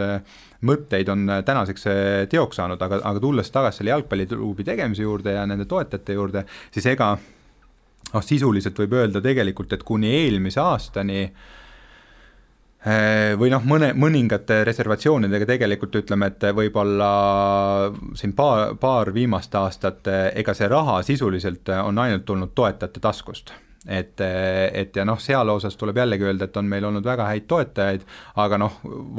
mõtteid on tänaseks teoks saanud, aga tulles tagasi selle jalgpalliklubi tegemise juurde ja nende toetajate juurde, siis ega sisuliselt võib öelda tegelikult, et kuni eelmise aastani või mõningate reservatsioonidega tegelikult ütleme, et võib-olla siin paar viimast aastat, ega see raha sisuliselt on ainult tulnud toetajate taskust. Et seal osas tuleb jällegi öelda, et on meil olnud väga häid toetajaid, aga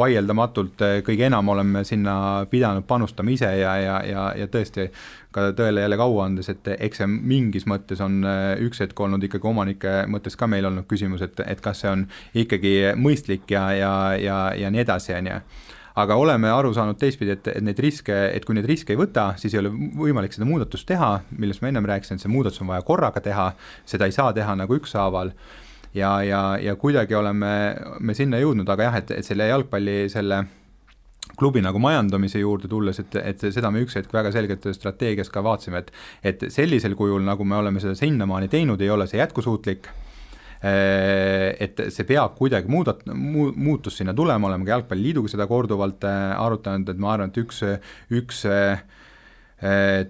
vaieldamatult kõige enam oleme sinna pidanud panustama ise ja tõesti ka tõele jälle kaua andes, et eks see mingis mõttes on üks hetk olnud ikkagi omanike mõttes ka meil olnud küsimus, et kas see on ikkagi mõistlik ja nii edasi, aga oleme aru saanud teistpidi, et neid riske, et kui neid riske ei võta, siis ei ole võimalik seda muudatust teha, millest ma ennem rääkisin, et see muudatus on vaja korraga teha, seda ei saa teha nagu ükshaaval ja kuidagi oleme me sinna jõudnud, aga jah, et selle jalgpalli selle klubi nagu majandamise juurde tulles, et seda me üks hetk väga selgelt strateegias ka vaatsime, et sellisel kujul, nagu me oleme seda sinnamaani teinud, ei ole see jätkusuutlik, et see peab kuidagi muutus sinna tulema, oleme ka Jalgpalliliiduga seda korduvalt arutanud, et ma arvan, et üks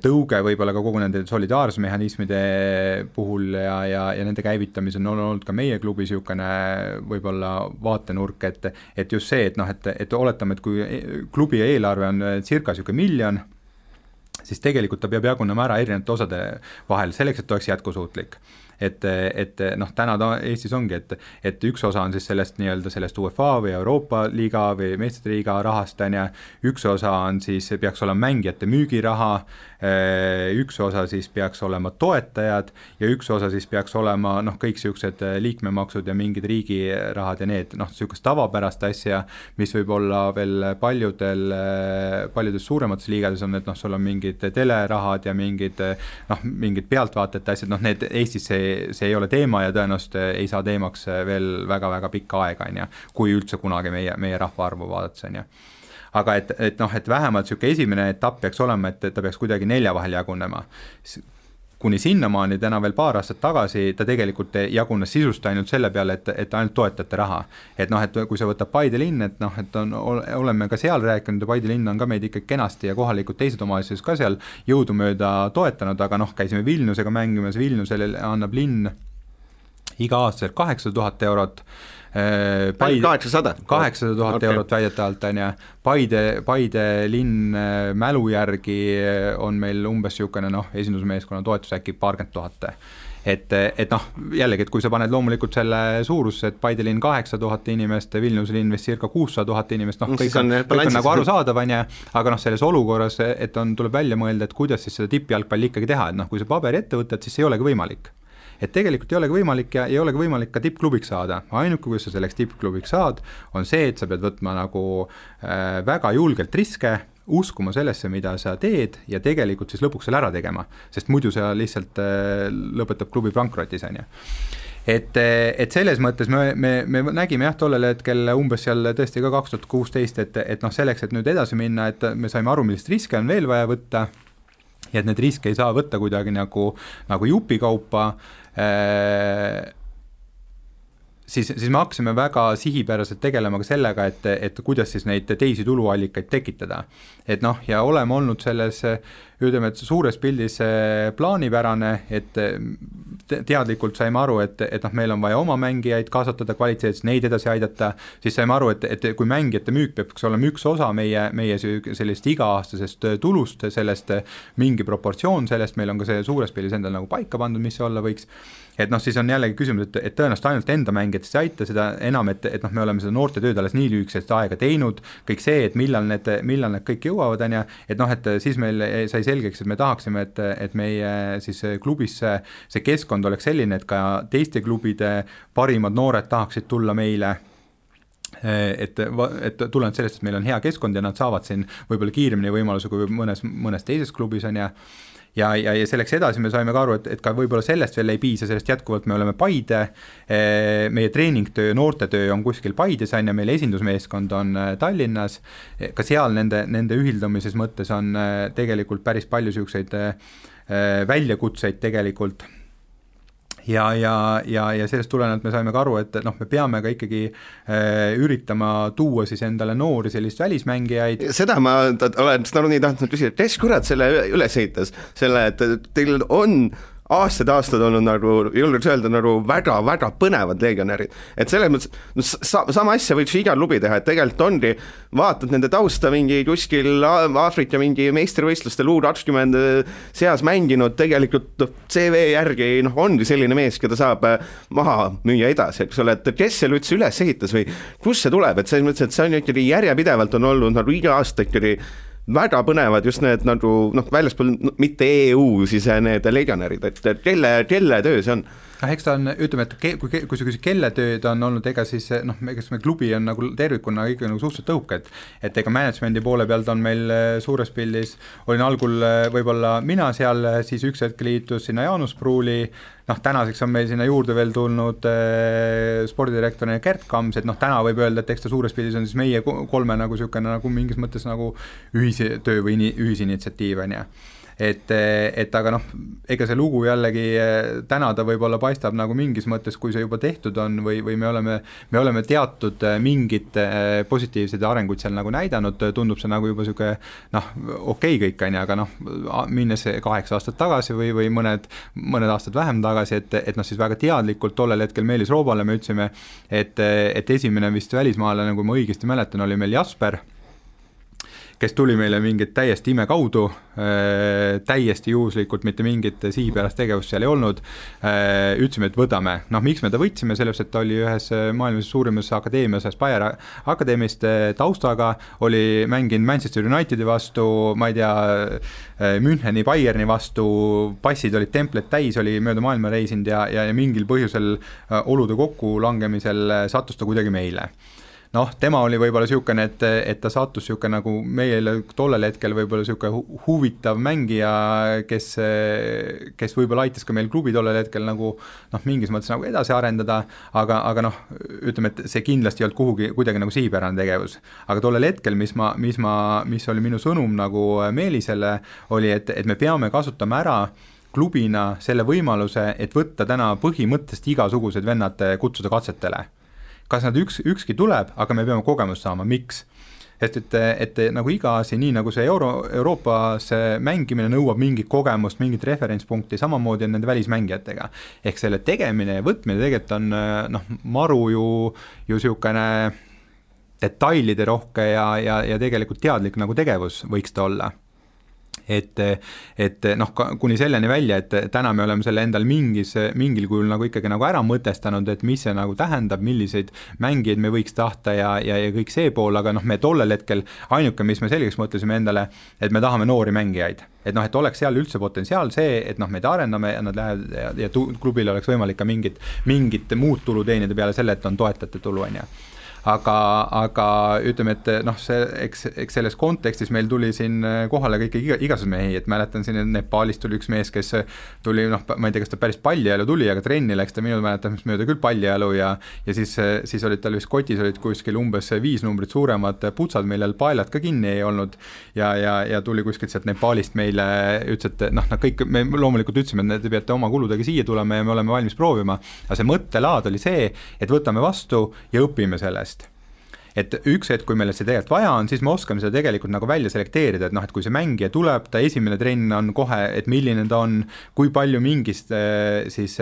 tõuge võib-olla ka kogu nende solidaarsmehhanismide puhul ja nende käivitamise on olnud ka meie klubi niisugune võib-olla vaatenurk, et just see, et oletame, et kui klubi eelarve on circa niisugune 1 miljon, siis tegelikult ta peab jagunema ära erinevate osade vahel selleks, et oleks jätkusuutlik. Et täna Eestis ongi, et üks osa on siis sellest nii-öelda sellest UEFA või Euroopa liiga või meistrite liiga rahast, üks osa on siis, peaks olema mängijate müügiraha, üks osa siis peaks olema toetajad ja üks osa siis peaks olema kõik siuksed liikmemaksud ja mingid riigirahad ja need siukest tavapärast asja, mis võib olla veel paljudes suuremates liigades on, et sul on mingid telerahad ja mingid pealtvaatajate asjad, need Eestis see ei ole teema ja tõenäoliselt ei saa teemaks veel väga-väga pikka aega, kui üldse kunagi meie rahvaarvu vaadates, aga et vähemalt niisugune esimene etapp peaks olema, et ta peaks kuidagi 4 vahel jagunema. Kuni sinnamaani täna veel paar aastat tagasi ta tegelikult jagunes sisust ainult selle peale, et ainult toetajate raha. Et kui sa võtab Paide linn, et oleme ka seal rääkinud ja Paide linn on ka meid ikka kenasti ja kohalikud teised omavalitsused ka seal jõudumööda toetanud, aga käisime Vilniusega mängimas, Vilniusele annab linn iga aastaselt 800 000 eurot, 800 000 eurot väidetavalt on ja Paide linn mälu järgi on meil umbes niisugune esindusmeeskonna toetus äkki 20 000. Et jällegi, et kui sa paned loomulikult selle suurusse, et Paide linn 800 000 inimest, Vilniuse linn vist circa 600 000 inimest, kõik on nagu arusaadav, aga selles olukorras, et tuleb välja mõelda, et kuidas siis seda tippjalgpalli ikkagi teha, et kui sa paberi ette võtad, siis ei olegi võimalik. Et tegelikult ei olegi võimalik ja ei olegi võimalik ka tippklubiks saada. Ainuke, kui sa selleks tippklubiks saad, on see, et sa pead võtma nagu väga julgelt riske, uskuma sellesse, mida sa teed ja tegelikult siis lõpuks selle ära tegema, sest muidu sa lihtsalt lõpetab klubi pankrotis. Et selles mõttes me nägime tollel hetkel umbes seal tõesti ka 2016, et selleks, et nüüd edasi minna, et me saime aru, millist riske on veel vaja võtta ja et need riske ei saa võtta kuidagi nagu jupikaupa, siis me hakkasime väga sihipäraselt tegelema ka sellega, et kuidas siis neid teisi tuluallikaid tekitada. Et ja oleme olnud selles, ütleme, et suures pildis plaanipärane, et teadlikult saime aru, et meil on vaja oma mängijaid kasvatada kvaliteetselt, neid edasi aidata, siis saime aru, et kui mängijate müük peaks olema üks osa meie sellist iga-aastasest tulust, sellest mingi proportsioon sellest, meil on ka see suures pildis endal nagu paika pandud, mis see olla võiks, et siis on jällegi küsimus, et tõenäoliselt ainult enda mängijatest ei aita seda enam, et me oleme seda noorte tööd alles nii lühikesest aega teinud, kõik see, et millal need kõik jõuavad, et siis meil sai selgeks, et me tahaksime, et meie siis klubis see keskkond oleks selline, et ka teiste klubide parimad noored tahaksid tulla meile, et tulenevalt sellest, et meil on hea keskkond ja nad saavad siin võib-olla kiiremini võimaluse kui mõnes teises klubis on ja selleks edasi me saime ka aru, et ka võib-olla sellest veel ei piisa, sellest jätkuvalt me oleme Paide, meie treeningtöö, noortetöö on kuskil Paides ja meil esindusmeeskond on Tallinnas, ka seal nende ühildamises mõttes on tegelikult päris palju siukseid väljakutseid tegelikult. Ja sellest tulenevalt me saime ka aru, et me peame ka ikkagi üritama tuua siis endale noori sellist välismängijaid. Seda ma olen nii tahtnud küsida, et kes kurat selle üles ehitas, selle, et teil on aastad olnud nagu, julgeks öelda, nagu väga põnevad legionärid. Et selles mõttes, sama asja võiks iga klubi teha, et tegelikult ongi, vaatad nende tausta mingi kuskil Aafrika mingi meistrivõistlustel U20 seas mänginud, tegelikult CV järgi ongi selline mees, keda saab maha müüa edasi, eks ole, et kes selle üldse üles ehitas või kus see tuleb, et selles mõttes, et see on ikkagi järjepidevalt on olnud nagu iga aasta ikkagi väga põnevad just need nagu väljaspool mitte EU siis need legionärid, et kelle töö see on? Eks ta on, ütleme, et kui sa küsid kelle tööd on olnud, ega siis noh, eks me klubi on nagu tervikuna ikka nagu suhteliselt tõhuke, et ega managemendi poole pealt on meil suures pildis, olin algul võib-olla mina seal, siis üks hetk liitus sinna Jaanus Pruuli, noh tänaseks on meil sinna juurde veel tulnud spordidirektorina Gert Kams, et noh täna võib öelda, et eks ta suures pildis on siis meie kolme nagu niisugune nagu mingis mõttes nagu ühistöö või ühisinitsiatiiv on ju. Et aga noh, ega see lugu jällegi täna ta võib-olla paistab nagu mingis mõttes, kui see juba tehtud on või me oleme teatud mingid positiivsed arenguid seal nagu näidanud, tundub see nagu juba siuke noh, okei kõik on, aga noh, minnes 8 aastat tagasi või mõned aastad vähem tagasi, et noh, siis väga teadlikult tollel hetkel Meelis Roobale me ütlesime, et esimene vist välismaalane, kui ma õigesti mäletan, oli meil Jasper, kes tuli meile mingit täiesti ime kaudu, täiesti juhuslikult, mitte mingit sihipärast tegevust seal ei olnud, ütlesime, et võtame. Noh, miks me ta võtsime, selles, et ta oli ühes maailmas suurimas akadeemias, Aspire akadeemist taustaga, oli mänginud Manchester Unitedi vastu, ma ei tea, Müncheni, Bayerni vastu, passid olid templet täis, oli mööda maailma reisinud ja mingil põhjusel olude kokku langemisel sattus ta kuidagi meile. Noh, tema oli võib-olla niisugune, et ta sattus niisugune nagu meile tollel hetkel võib-olla niisugune huvitav mängija, kes võib-olla aitas ka meil klubi tollel hetkel nagu noh, mingis mõttes nagu edasi arendada, aga noh, ütleme, et see kindlasti ei olnud kuidagi nagu sihipärane tegevus. Aga tollel hetkel, mis oli minu sõnum nagu Meelisele, oli, et me peame kasutama ära klubina selle võimaluse, et võtta täna põhimõttest igasugused vennad kutsuda katsetele. Kas nad ükski tuleb, aga me peame kogemust saama, miks? Et nagu iga asi, nii nagu see Euroopas mängimine nõuab mingit kogemust, mingit referentspunkti, samamoodi on nende välismängijatega. Ehk selle tegemine ja võtmine tegelikult on noh, maru ju niisugune detailide rohke ja tegelikult teadlik nagu tegevus võiks ta olla. Et noh, kuni selleni välja, et täna me oleme selle endal mingil kujul nagu ikkagi nagu ära mõtestanud, et mis see nagu tähendab, milliseid mängijaid me võiks tahta ja kõik see pool, aga noh, me tollel hetkel ainuke, mis me selgeks mõtlesime endale, et me tahame noori mängijaid. Et noh, et oleks seal üldse potentsiaal see, et noh, meid arendame ja nad lähevad ja klubil oleks võimalik ka mingit muud tulu teenida peale selle, et on toetajate tulu, on ju. Aga ütleme, et noh, eks selles kontekstis meil tuli siin kohale kõik igasugused mehi, et mäletan siin, et Nepaalist tuli üks mees, kes tuli, noh, ma ei tea, kas ta päris pallijalu tuli, aga trenni läks ta minu mäletamist mööda küll pallijalu ja siis olid tal vist kotis olid kuskil umbes 5 numbrit suuremad putsad, millel paelad ka kinni ei olnud ja tuli kuskilt sealt Nepaalist meile, ütles, et noh, kõik, me loomulikult ütlesime, et te peate oma kuludega siia tulema ja me oleme valmis proovima, aga see mõttelaad oli see, et võtame vastu ja õpime sellest. Et üks hetk, kui meil see tegelikult vaja on, siis me oskame seda tegelikult nagu välja selekteerida, et noh, et kui see mängija tuleb, ta esimene trenn on kohe, et milline ta on, kui palju mingist siis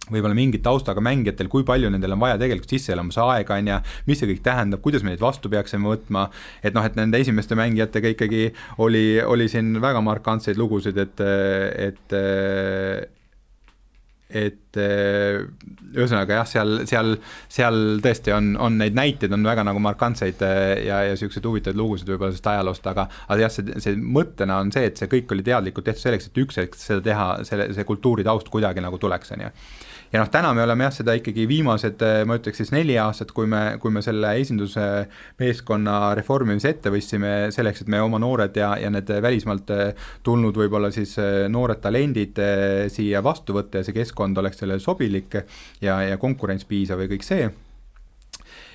võib-olla mingit taustaga mängijatel, kui palju nendel on vaja tegelikult sisseelamise aega on ja mis see kõik tähendab, kuidas me neid vastu peaksime võtma, et noh, et nende esimeste mängijatega ikkagi oli siin väga markantseid lugusid, et ühesõnaga jah, seal tõesti on neid näiteid on väga nagu markantseid ja sellised huvitavad lugusid võib-olla sellest ajaloost, aga jah, see mõttena on see, et see kõik oli teadlikult tehtud selleks, et üks hetk seda teha, see kultuuri taust kuidagi nagu tuleks, on ju. Ja noh, täna me oleme jah seda ikkagi viimased, ma ütleks siis 4 aastat, kui me selle esinduse meeskonna reformimise ette võtsime selleks, et me oma noored ja need välismaalt tulnud võib-olla siis noored talendid siia vastu võtta ja see keskkond oleks selle sobilik ja konkurents piisav ja kõik see.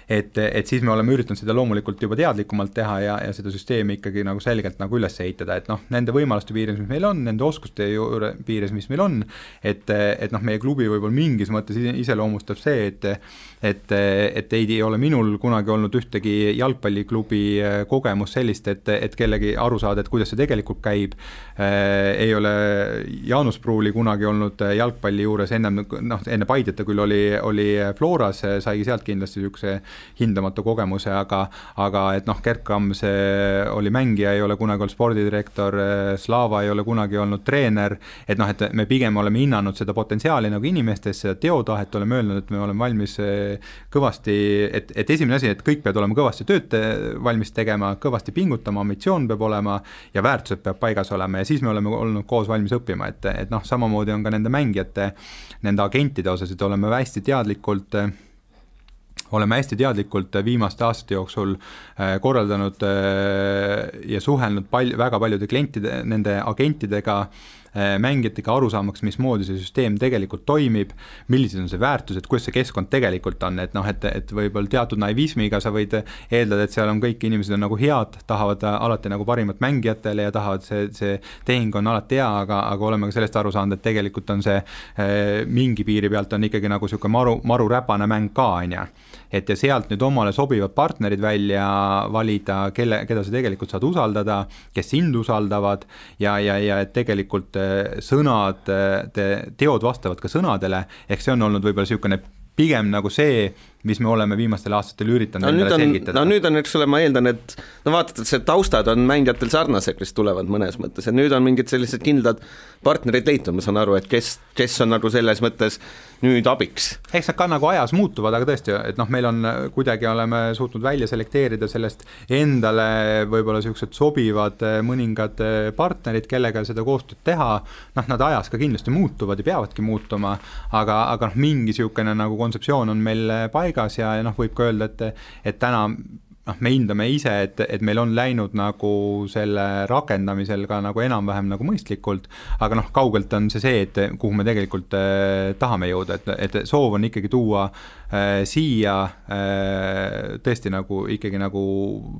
Et siis me oleme üritanud seda loomulikult juba teadlikumalt teha ja seda süsteemi ikkagi nagu selgelt nagu üles ehitada, et noh, nende võimaluste piires, mis meil on, nende oskuste piires, mis meil on, et noh, meie klubi võib-olla mingis mõttes iseloomustab see, et ei ole minul kunagi olnud ühtegi jalgpalliklubi kogemus sellist, et kellegi aru saada, et kuidas see tegelikult käib, ei ole Jaanus Pruuli kunagi olnud jalgpalli juures enne Paideta küll oli Floras, saigi sealt kindlasti niisuguse hindamatu kogemuse, aga et noh, Gerd Kams oli mängija, ei ole kunagi olnud spordidirektor, Slava ei ole kunagi olnud treener, et noh, et me pigem oleme hinnanud seda potentsiaali nagu inimestes, seda teotahet, oleme öelnud, et me oleme valmis kõvasti, et esimene asi, et kõik peavad olema kõvasti tööd valmis tegema, kõvasti pingutama, ambitsioon peab olema ja väärtused peab paigas olema ja siis me oleme olnud koos valmis õppima, et noh, samamoodi on ka nende mängijate, nende agentide osas, et oleme hästi teadlikult viimaste aastate jooksul korraldanud ja suhelnud väga paljude klientide, nende agentidega, mängijatega aru saamaks, mismoodi see süsteem tegelikult toimib, millised on see väärtused, kuidas see keskkond tegelikult on, et noh, et võib-olla teatud naivismiga sa võid eeldada, et seal on kõik inimesed on nagu head, tahavad alati nagu parimat mängijatele ja tahavad see tehing on alati hea, aga oleme ka sellest aru saanud, et tegelikult on see mingi piiri pealt on ikkagi nagu siuke maru räpane mäng ka, onja. Et ja sealt nüüd omale sobivad partnerid välja valida, keda sa tegelikult saad usaldada, kes sind usaldavad ja et tegelikult sõnad, teod vastavad ka sõnadele, ehk see on olnud võib-olla siukene pigem nagu see, mis me oleme viimastel aastatel üritanud endale selgitada. Nüüd on, eks ole, ma eeldan, et no vaatad, et see taustad on mängijatel sarnased, kes tulevad mõnes mõttes, ja nüüd on mingid sellised kindlad partnerid leitud, ma saan aru, et kes on nagu selles mõttes nüüd abiks. Eks nad ka nagu ajas muutuvad, aga tõesti, et noh, meil on kuidagi oleme suutnud välja selekteerida sellest endale võib-olla sellised sobivad mõningad partnerid, kellega seda koostööd teha, noh, nad ajas ka kindlasti muutuvad ja peavadki muutuma, aga noh, mingi siukene nagu kontseptsioon on meil paigas ja noh, võib ka öelda, et täna me hindame ise, et meil on läinud nagu selle rakendamisel ka nagu enam-vähem nagu mõistlikult, aga noh, kaugelt on see, et kuhu me tegelikult tahame jõuda, et soov on ikkagi tuua siia tõesti nagu ikkagi nagu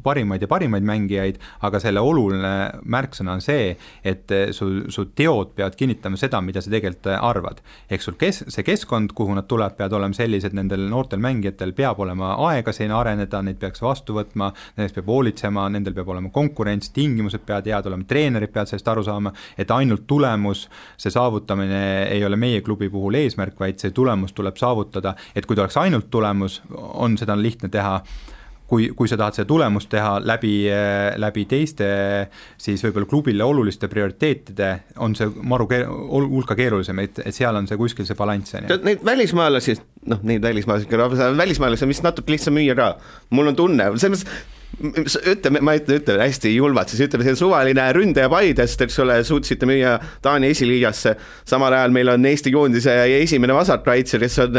parimaid mängijaid, aga selle oluline märksõna on see, et su teod peavad kinnitama seda, mida sa tegelikult arvad. Ehk sul see keskkond, kuhu nad tuleb, peavad olema sellised, nendel noortel mängijatel peab olema aega siin areneda, neid peaks vastu võtma, nendest peab hoolitsema, nendel peab olema konkurents, tingimused peavad head olema, treenerid peavad sellest aru saama, et ainult tulemus, see saavutamine ei ole meie klubi puhul eesmärk, vaid see tulemus tuleb saavutada, et kui ta oleks ainult tulemus, on seda lihtne teha, kui sa tahad seda tulemust teha läbi teiste, siis võib-olla klubile oluliste prioriteetide on see hulka keerulisem, et seal on see kuskil see balanss. Neid välismaalasi, on vist natuke lihtsam müüa ka. Mul on tunne, ma ütlen hästi julmalt, siis ütleme, see suvaline ründaja Paidest, eks ole, suutsite müüa Taani esiliigasse, samal ajal meil on Eesti koondise esimene vasarkaitse, kes on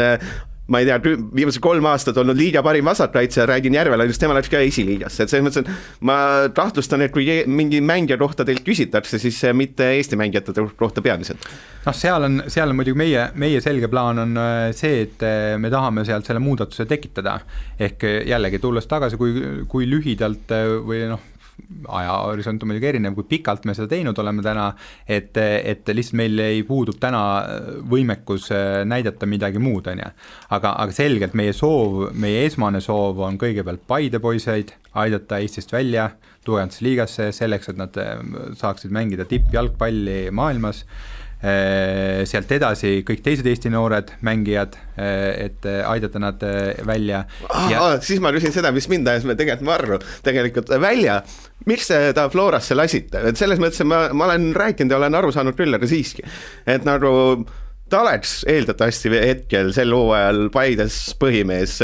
ma ei tea, viimased 3 aastat olnud liiga parim vasarkaitse, räägin Järvela, just tema läks ka esiliigasse, et selles mõttes, ma kahtlustan, et kui mingi mängija kohta teilt küsitakse, siis mitte Eesti mängijate kohta peamiselt. No seal on muidugi meie selge plaan on see, et me tahame sealt selle muudatuse tekitada, ehk jällegi tulles tagasi, kui lühidalt või noh, ajahorisont on muidugi erinev, kui pikalt me seda teinud oleme täna, et lihtsalt meil ei puudub täna võimekus näidata midagi muud, on ja. Aga selgelt meie esmane soov on kõigepealt Paide poiseid aidata Eestist välja, tugevasse liigasse selleks, et nad saaksid mängida tippjalgpalli maailmas, sealt edasi kõik teised Eesti noored mängijad, et aidata nad välja. Siis ma küsin seda, mis mind ajas me tegelikult välja, miks ta Florasse lasite, et selles mõttes ma olen rääkinud ja olen aru saanud küll, aga siiski, et nagu ta oleks eeldatavasti hetkel sel hooajal Paides põhimees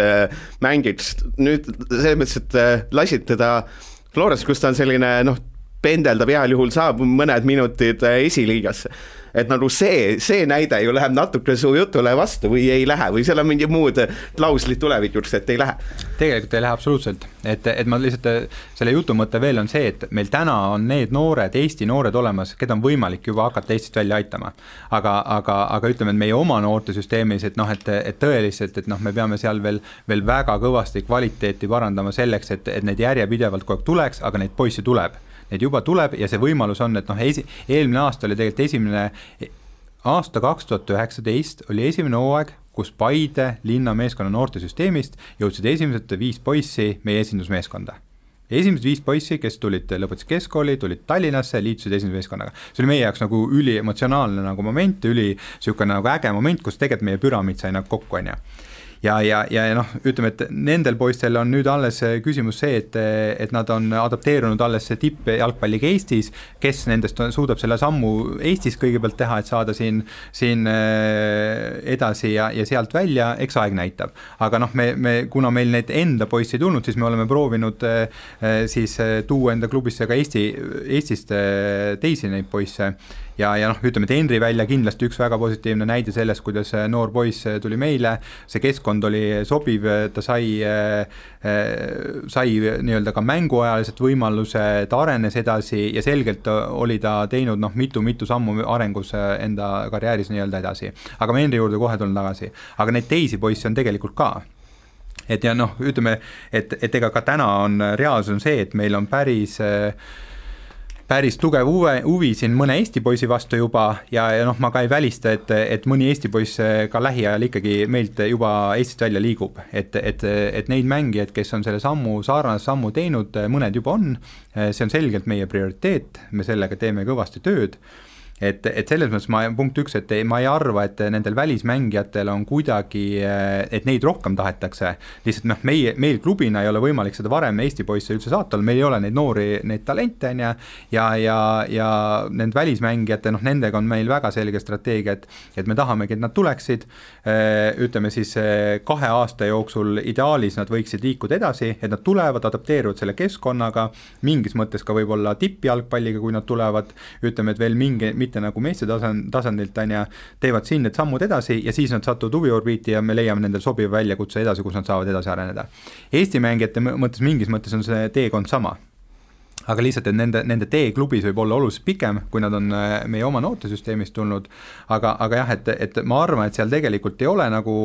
mängiks, nüüd selles mõttes, et lasid teda Florasse, kus ta on selline pendeldab heal juhul saab mõned minutid esiliigasse. Et nagu see näide ju läheb natuke su jutule vastu või ei lähe või seal on mingi muud klauslid tulevikuks, et ei lähe. Tegelikult ei lähe absoluutselt, et ma lihtsalt selle jutu mõte veel on see, et meil täna on need noored, Eesti noored olemas, keda on võimalik juba hakata Eestist välja aitama. Aga ütleme, et meie oma noorte süsteemis, et tõeliselt, et me peame seal veel väga kõvasti kvaliteeti parandama selleks, et neid järjepidevalt kogu aeg tuleks, aga neid poissi tuleb. Neid juba tuleb ja see võimalus on, et eelmine aasta oli tegelikult esimene aasta 2019 oli esimene hooaeg, kus Paide linna meeskonna noortesüsteemist jõudsid esimesed 5 poissi meie esindusmeeskonda. Esimesed 5 poissi, kes lõpetasid keskkooli, tulid Tallinnasse, liitusid esindusmeeskonnaga. See oli meie jaoks nagu üliemotsionaalne nagu moment, siukene nagu äge moment, kus tegelikult meie püramiid sai nagu kokku, on ja. ja noh, ütleme, et nendel poistel on nüüd alles küsimus see, et nad on adapteerunud alles tippjalgpalliga Eestis, kes nendest suudab selle sammu Eestis kõigepealt teha, et saada siin edasi ja sealt välja, eks aeg näitab. Aga noh, kuna meil neid enda poissi ei tulnud, siis me oleme proovinud siis tuua enda klubisse ka Eestist teisi neid poisse ja noh, ütleme, et Henri välja kindlasti üks väga positiivne näide sellest, kuidas noor poiss tuli meile, see keskkond oli sobiv, ta sai nii-öelda ka mänguajaliselt võimaluse, ta arenes edasi ja selgelt oli ta teinud noh, mitu sammu arengus enda karjääris nii-öelda edasi. Aga me Henri juurde kohe tulen tagasi. Aga neid teisi poisse on tegelikult ka. Et ja noh, ütleme, et ega ka täna on reaalsus on see, et meil on päris tugev huvi siin mõne Eesti poisi vastu juba ja noh, ma ka ei välista, et mõni Eesti poiss ka lähiajal ikkagi meilt juba Eestist välja liigub, et neid mängijaid, kes on selle sarnase sammu teinud, mõned juba on, see on selgelt meie prioriteet, me sellega teeme kõvasti tööd. Et selles mõttes punkt üks, et ma ei arva, et nendel välismängijatel on kuidagi, et neid rohkem tahetakse, lihtsalt noh, meil klubina ei ole võimalik seda varem Eesti poisse üldse saata, meil ei ole neid noori, neid talente ja need välismängijate, noh, nendega on meil väga selge strateegia, et me tahamegi, et nad tuleksid, ütleme siis 2 aasta jooksul ideaalis nad võiksid liikuda edasi, et nad tulevad, adapteeruvad selle keskkonnaga, mingis mõttes ka võib-olla tippjalgpalliga, kui nad tulevad, ütleme, et veel mitte nagu meeste tasandilt teevad siin need sammud edasi ja siis nad satuvad huviorbiiti ja me leiame nendel sobiva väljakutse edasi, kus nad saavad edasi areneda. Eesti mängijate mõttes mingis mõttes on see teekond sama. Aga lihtsalt, et nende tee klubis võib olla oluliselt pikem, kui nad on meie oma noortesüsteemist tulnud, aga jah, et ma arvan, et seal tegelikult ei ole nagu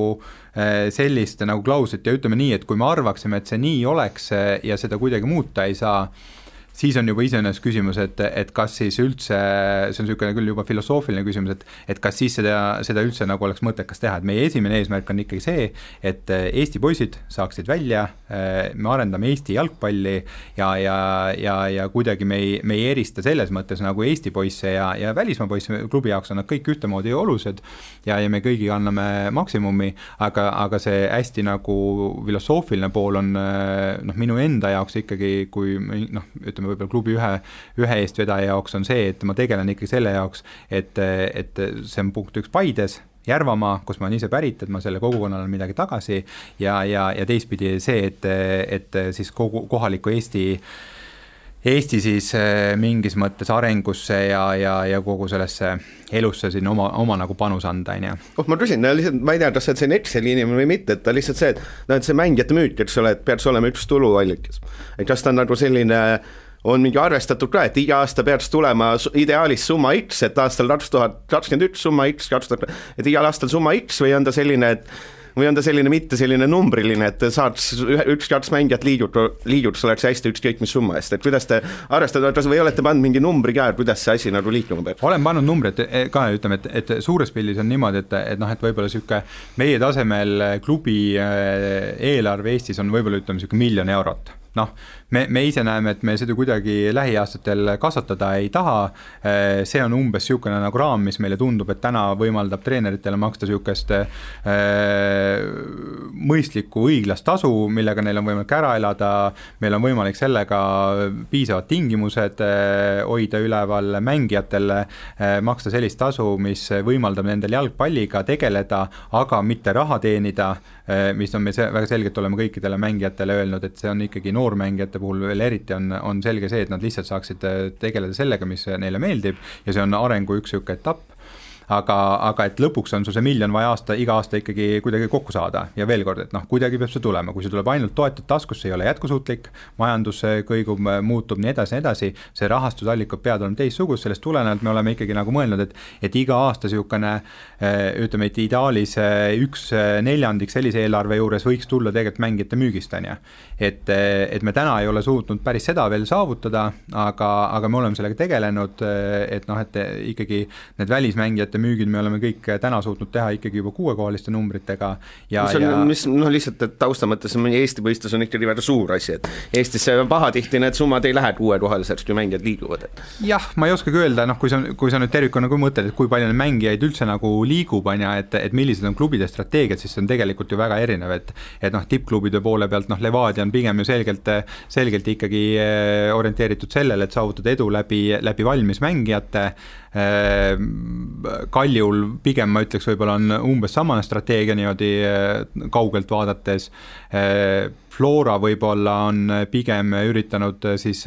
sellist nagu klauslit ja ütleme nii, et kui me arvaksime, et see nii oleks ja seda kuidagi muuta ei saa, siis on juba iseenesest küsimus, et kas siis üldse, see on niisugune küll juba filosoofiline küsimus, et kas siis seda üldse nagu oleks mõttekas teha, et meie esimene eesmärk on ikkagi see, et Eesti poisid saaksid välja, me arendame Eesti jalgpalli ja kuidagi me ei erista selles mõttes nagu Eesti poisse ja välismaa poisse klubi jaoks on nad kõik ühtemoodi olulised ja me kõigi anname maksimumi, aga see hästi nagu filosoofiline pool on noh, minu enda jaoks ikkagi, kui noh, ütleme võib-olla klubi ühe eestvedaja jaoks on see, et ma tegelen ikkagi selle jaoks, et see on punkt 1 Paides, Järvamaa, kus ma olen ise pärit, et ma selle kogukonnale midagi tagasi ja teistpidi see, et siis kohaliku Eesti siis mingis mõttes arengusse ja kogu sellesse elusse siin oma nagu panus anda, on ju. Ma küsin, lihtsalt, ma ei tea, kas see on Exceli inimene või mitte, et ta lihtsalt see, et see mängijate müüt, eks ole, et peaks olema üks tuluallikas. Et kas ta on nagu selline, on mingi arvestatud ka, et iga aasta peaks tulema ideaalis summa X, et aastal 2021 summa X, et igal aastal summa X või on ta selline mitte selline numbriline, et saaks 1-2 mängijat liidud, oleks hästi ükskõik mis summa eest, et kuidas te arvestate, või olete pannud mingi numbri ka, et kuidas see asi nagu liikuma peab? Olen pannud numbrid ka, ütleme, et suures pildis on niimoodi, et noh, et võib-olla siuke meie tasemel klubi eelarve Eestis on võib-olla ütleme siuke 1 miljon eurot. Noh, me ise näeme, et me seda kuidagi lähiaastatel kasvatada ei taha, see on umbes siukene nagu raam, mis meile tundub, et täna võimaldab treeneritele maksta siukest mõistlikku õiglast tasu, millega neil on võimalik ära elada, meil on võimalik sellega piisavad tingimused hoida üleval mängijatele, maksta sellist tasu, mis võimaldab nendel jalgpalliga tegeleda, aga mitte raha teenida, mis on me väga selgelt oleme kõikidele mängijatele öelnud, et see on ikkagi noormängijate puhul veel eriti on selge see, et nad lihtsalt saaksid tegeleda sellega, mis neile meeldib ja see on arengu üks etapp. Aga et lõpuks on sul see 1 miljon vaja iga aasta ikkagi kuidagi kokku saada ja veel kord, et noh, kuidagi peab see tulema, kui see tuleb ainult toetud taskusse, ei ole jätkusuutlik, majandus kõigub, muutub nii edasi, see rahastusallikad peavad olema teistsugust, sellest tulenevalt me oleme ikkagi nagu mõelnud, et iga aasta siukene, ütleme, et ideaalis 1/4 sellise eelarve juures võiks tulla tegelikult mängijate müügist, on ju. Et me täna ei ole suutnud päris seda veel saavutada, aga me oleme sellega tegelenud, et noh, et ikkagi need välismängijate müügid me oleme kõik täna suutnud teha ikkagi juba 6-kohaliste numbritega ja mis lihtsalt, et tausta mõttes Eesti mõistes on ikkagi väga suur asi, et Eestis pahatihti need summad ei lähe 6-kohaliseks, kui mängijad liiguvad. Jah, ma ei oskagi öelda, kui sa nüüd tervikuna mõtled, et kui palju mängijaid üldse nagu liigub, et millised on klubide strateegiad, siis see on tegelikult ju väga erinev, et tippklubide poole pealt, Levadia on pigem ju selgelt ikkagi orienteeritud sellele, et saavutada edu läbi valmis mängijate, Kaljul pigem ma ütleks võib-olla on umbes samane strateegia niimoodi kaugelt vaadates, Flora võib-olla on pigem üritanud siis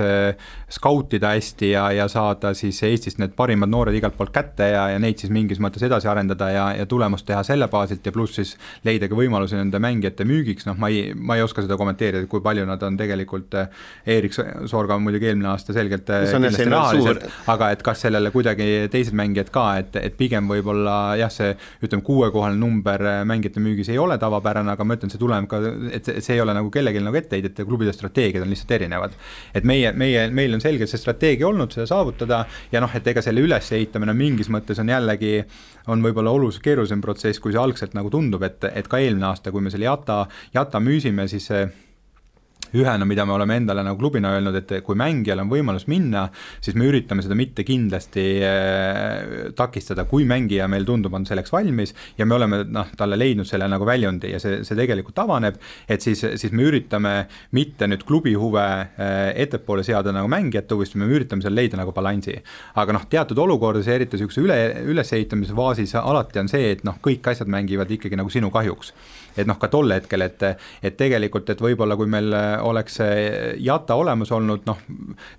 skautida hästi ja saada siis Eestist need parimad noored igalt poolt kätte ja neid siis mingis mõttes edasi arendada ja tulemust teha selle baasilt ja pluss siis leida ka võimalusi nende mängijate müügiks, ma ei oska seda kommenteerida, kui palju nad on tegelikult, Erik Sorga on muidugi eelmine aasta selgelt kindlasti rahaliselt, aga et kas sellele kuidagi teised mängijad ka, et pigem võib-olla jah, see 6-kohaline number mängijate müügis ei ole tavapärane, aga ma ütlen, see tuleb ka, et see ei ole nagu kellegi nagu etteheidet ja klubide strateegiad on lihtsalt erinevad. Et meil on selgelt see strateegia olnud seda saavutada ja et ega selle ülesehitamine mingis mõttes on jällegi, on võib-olla oluliselt keerulisem protsess, kui see algselt nagu tundub, et ka eelmine aasta, kui me selle Jata müüsime, siis ühena, mida me oleme endale nagu klubina öelnud, et kui mängijal on võimalus minna, siis me üritame seda mitte kindlasti takistada, kui mängija meil tundub on selleks valmis ja me oleme talle leidnud selle nagu väljundi ja see tegelikult avaneb, et siis me üritame mitte nüüd klubi huve ettepoole seada nagu mängijate huvist, me üritame seal leida nagu balansi. Aga teatud olukordades, eriti ülesehitamise faasis alati on see, et kõik asjad mängivad ikkagi nagu sinu kahjuks. Et ka tolle hetkel, et tegelikult, et võib-olla kui meil oleks Jata olemas olnud,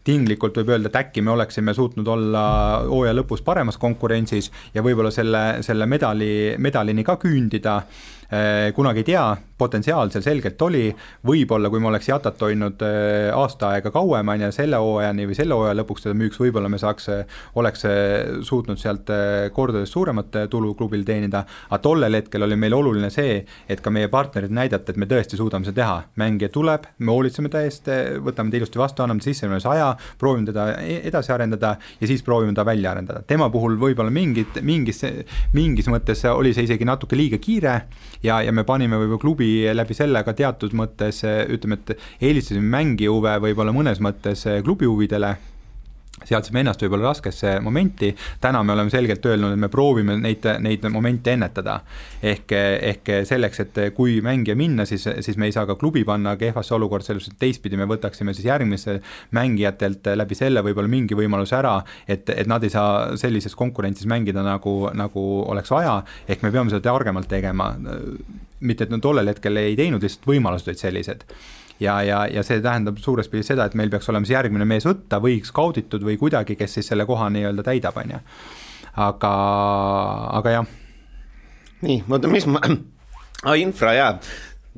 tinglikult võib öelda, et äkki me oleksime suutnud olla hooaja lõpus paremas konkurentsis ja võib-olla selle medalini ka küündida, kunagi ei tea, potentsiaal seal selgelt oli, võib-olla kui me oleks Jatat hoidnud aasta aega kauem selle hooajani või selle hooaja lõpuks teda müüks, võib-olla me oleks suutnud sealt kordades suuremat tulu klubil teenida, aga tollel hetkel oli meil oluline see, et ka meie partnerid näidata, et me tõesti suudame seda teha. Mängija tuleb, me hoolitseme ta eest, võtame ta ilusti vastu, anname sisse aja, proovime teda edasi arendada ja siis proovime ta välja arendada. Tema puhul võib-olla mingis mõttes oli see isegi natuke liiga kiire ja me panime võib-olla klubi läbi selle ka teatud mõttes, ütleme, et eelistasime mängi huve võib-olla mõnes mõttes klubi huvidele, seadsime ennast võib-olla raskesse momenti, täna me oleme selgelt öelnud, et me proovime neid momente ennetada. Ehk selleks, et kui mängija minna, siis me ei saa ka klubi panna kehvasse olukord, selles, et teistpidi me võtaksime siis järgmise mängijatelt läbi selle võib-olla mingi võimalus ära, et nad ei saa sellises konkurentsis mängida nagu oleks vaja, ehk me peame seda targemalt tegema, mitte et tollel hetkel ei teinud, lihtsalt võimalused olid sellised. Ja see tähendab suures pildis seda, et meil peaks olema järgmine mees võtta või skauditud või kuidagi, kes siis selle koha nii-öelda täidab, on. Aga jah. Nii, mis ma... infra, jaa.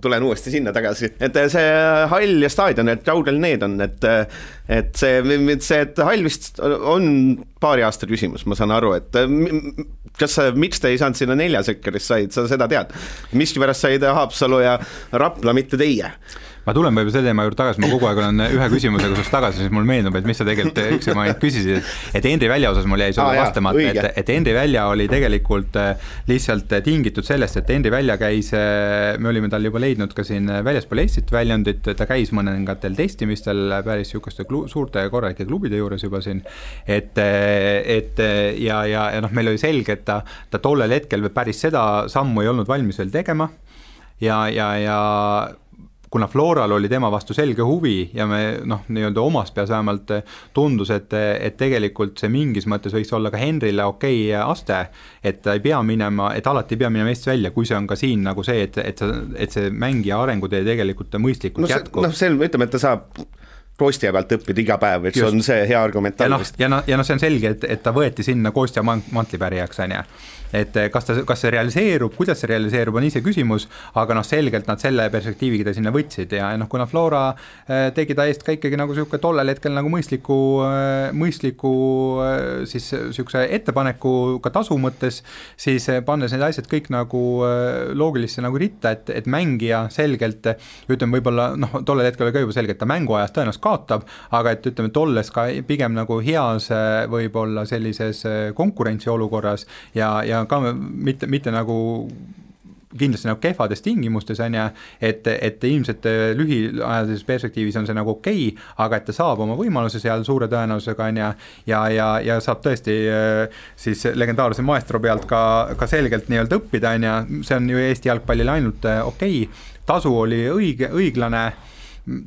Tulen uuesti sinna tagasi, et see hall ja staadion, et kaugel need on, et see hall vist on paari aasta küsimus, ma saan aru, et miks te ei saanud sinna 4 sekkerist said, sa seda tead, miski pärast said Haapsalu ja Rapla, mitte teie? Ma tulen võib-olla selle teema juurde tagasi, ma kogu aeg olen ühe küsimusega sust tagasi, siis mul meenub, et mis sa tegelikult üks ma küsisid, et Henri Välja osas mul jäi sulle vastamata, et Henri Välja oli tegelikult lihtsalt tingitud sellest, et Henri Välja käis, me olime tal juba leidnud ka siin väljaspool Eestit väljundit, ta käis mõningatel testimistel päris sihukeste suurte korralike klubide juures juba siin, ja meil oli selge, et ta tollel hetkel päris seda sammu ei olnud valmis veel tegema ja kuna Floral oli tema vastu selge huvi ja me nii-öelda omas peas vähemalt tundus, et tegelikult see mingis mõttes võiks olla ka Henrile okei aste, et ta ei pea minema, et alati ei pea minema Eestis välja, kui see on ka siin nagu see, et see mängija arengutee tegelikult mõistlikult jätkub. Ütleme, et ta saab Kostja pealt õppida iga päev, et see on see hea argument. Ja see on selge, et ta võeti sinna Kostja mantlipärijaks, on ja. Et kas see realiseerub, kuidas see realiseerub, on ise küsimus, aga selgelt nad selle perspektiiviga ta sinna võtsid ja kuna Flora tegi ta eest ka ikkagi nagu siuke tollel hetkel nagu mõistliku siis siukse ettepaneku ka tasu mõttes, siis pannes need asjad kõik nagu loogilisse nagu ritta, et mängija selgelt, ütleme võib-olla tollel hetkel oli ka juba selge, et ta mänguajas tõenäoliselt kaotab, aga et ütleme, et olles ka pigem nagu heas võib-olla sellises konkurentsiolukorras ja ka mitte nagu kindlasti nagu kehvades tingimustes on ja, et ilmselt lühiajalises perspektiivis on see nagu okei, aga et ta saab oma võimaluse seal suure tõenäosusega on ja saab tõesti siis legendaarse maestro pealt ka selgelt nii-öelda õppida on ja see on ju Eesti jalgpallile ainult okei, tasu oli õiglane,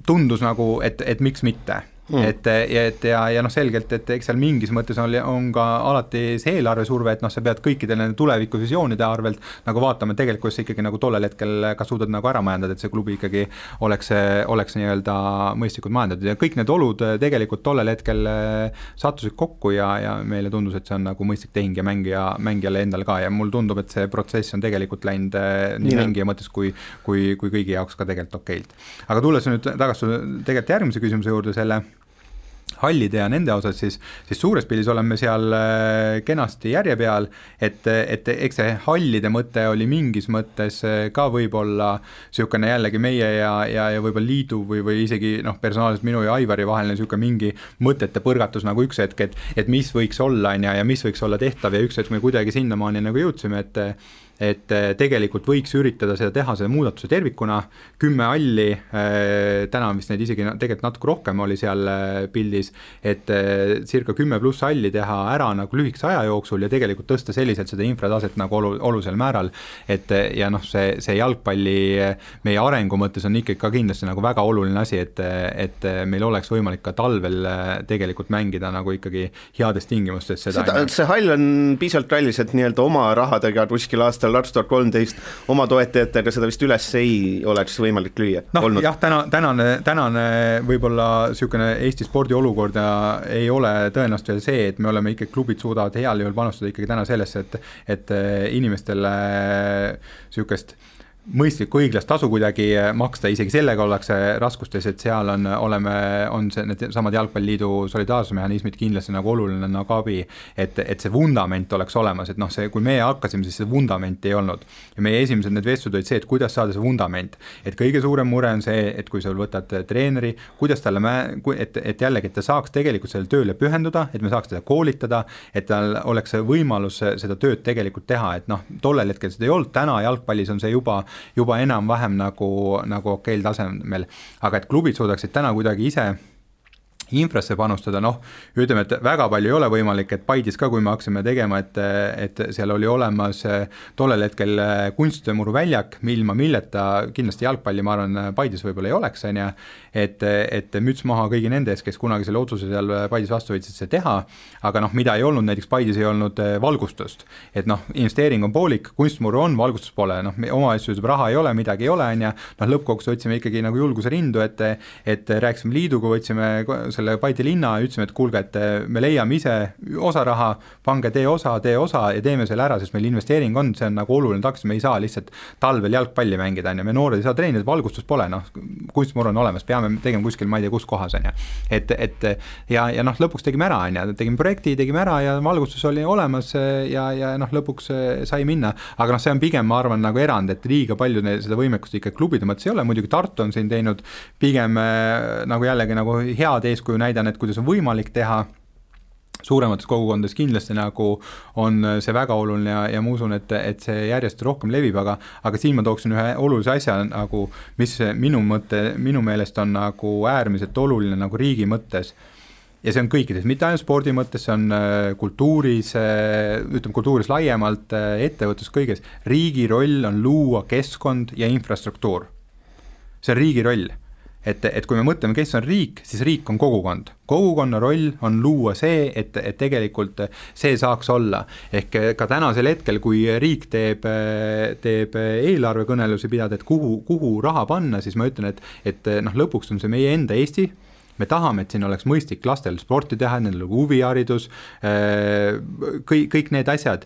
tundus nagu, et miks mitte. Ja noh selgelt, et eks seal mingis mõttes on ka alati see eelarvesurve, et noh, sa pead kõikidele tulevikuvisioonide arvelt nagu vaatama, tegelikult see ikkagi nagu tollel hetkel ka suudad nagu ära majandada, et see klubi ikkagi oleks nii-öelda mõistlikult majandatud ja kõik need olud tegelikult tollel hetkel sattusid kokku ja meile tundus, et see on nagu mõistlik tehing ja mängijale endal ka ja mul tundub, et see protsess on tegelikult läinud nii mängija mõttes kui kõigi jaoks ka tegelikult okeilt. Aga tulles nüüd tagasi tegelikult järgmise küsimuse juurde selle hallide ja nende osas, siis suures pildis oleme seal kenasti järje peal, et eks see hallide mõte oli mingis mõttes ka võib-olla niisugune jällegi meie ja võib-olla liidu või isegi personaalselt minu ja Aivari vaheline niisugune mingi mõtete põrgatus nagu üks hetk, et mis võiks olla ja mis võiks olla tehtav ja üks hetk me kuidagi sinnamaani nagu jõudsime, et tegelikult võiks üritada seda teha, selle muudatuse tervikuna, 10 halli, täna vist neid isegi tegelikult natuke rohkem oli seal pildis, et circa 10 pluss halli teha ära nagu lühikese aja jooksul ja tegelikult tõsta selliselt seda infrataset nagu olulisel määral, et ja see jalgpalli meie arengu mõttes on ikkagi ka kindlasti nagu väga oluline asi, et meil oleks võimalik ka talvel tegelikult mängida nagu ikkagi heades tingimustes seda. See hall on piisavalt kallis, et nii-öelda oma rahadega kuskil aastal 2013 oma toetajatega seda vist üles ei oleks võimalik lüüa. Jah, tänane võib-olla niisugune Eesti spordi olukord ei ole tõenäoliselt veel see, et me oleme ikkagi, klubid suudavad heal juhul panustada ikkagi täna sellesse, et inimestele niisugust mõistlikku õiglast tasu kuidagi maksta, isegi sellega ollakse raskustes, et seal on need samad jalgpalliliidu solidaarsusmehhanismid kindlasti nagu oluline nagu abi, et see vundament oleks olemas, et kui meie hakkasime, siis see vundament ei olnud ja meie esimesed need vestlud olid see, et kuidas saada see vundament, et kõige suurem mure on see, et kui sa võtad treeneri, kuidas talle et jällegi, et ta saaks tegelikult selle tööle pühenduda, et me saaks teda koolitada, et tal oleks võimalus seda tööd tegelikult teha, et tollel hetkel seda ei olnud, täna jalgpallis on see juba enam-vähem nagu okeil tasemel, aga et klubid suudaksid täna kuidagi ise infrasse panustada, ütleme, et väga palju ei ole võimalik, et Paidis ka, kui me hakkasime tegema, et seal oli olemas tollel hetkel kunstimuru väljak, ilma milleta kindlasti jalgpalli, ma arvan, Paidis võib-olla ei oleks, et müts maha kõigi nende ees, kes kunagi selle otsuse seal Paidis vastu võtsid see teha, aga mida ei olnud, näiteks Paidis ei olnud valgustust, et investeering on poolik, kunstmuru on, valgustus pole, omavalitsus raha ei ole, midagi ei ole, lõppkokkuvõttes võtsime ikkagi nagu julguse rindu, et rääkisime liiduga, võtsime selle Paide linna ja ütlesime, et kuulge, et me leiame ise osa raha, pange tee osa ja teeme selle ära, sest meil investeering on, see on nagu oluline taks, me ei saa lihtsalt talvel jalgpalli mängida, me noored ei saa treenida, valgustus pole, kunstmuru on olemas, peame tegema kuskil, ma ei tea, kus kohas on ja lõpuks tegime ära, tegime projekti, tegime ära ja valgustus oli olemas ja lõpuks sai minna, aga see on pigem, ma arvan, nagu erand, et liiga palju seda võimekust ikka klubide mõttes ei ole, muidugi Tartu on siin teinud pigem nagu jällegi nagu head eeskuju näidan, et kuidas on võimalik teha suuremates kogukondades kindlasti nagu on see väga oluline ja ma usun, et see järjest rohkem levib, aga siin ma tooksin ühe olulise asja nagu, mis minu meelest on nagu äärmiselt oluline nagu riigi mõttes ja see on kõikides, mitte ainult spordi mõttes, see on kultuuris, ütleme kultuuris laiemalt, ettevõttes kõiges, riigi roll on luua keskkond ja infrastruktuur. See on riigi roll. Et kui me mõtleme, kes on riik, siis riik on kogukond. Kogukonna roll on luua see, et tegelikult see saaks olla. Ehk ka tänasel hetkel, kui riik teeb eelarvekõnelusi pidada, et kuhu raha panna, siis ma ütlen, et lõpuks on see meie enda Eesti. Me tahame, et siin oleks mõistlik lastel sporti teha, nendel huviharidus, kõik need asjad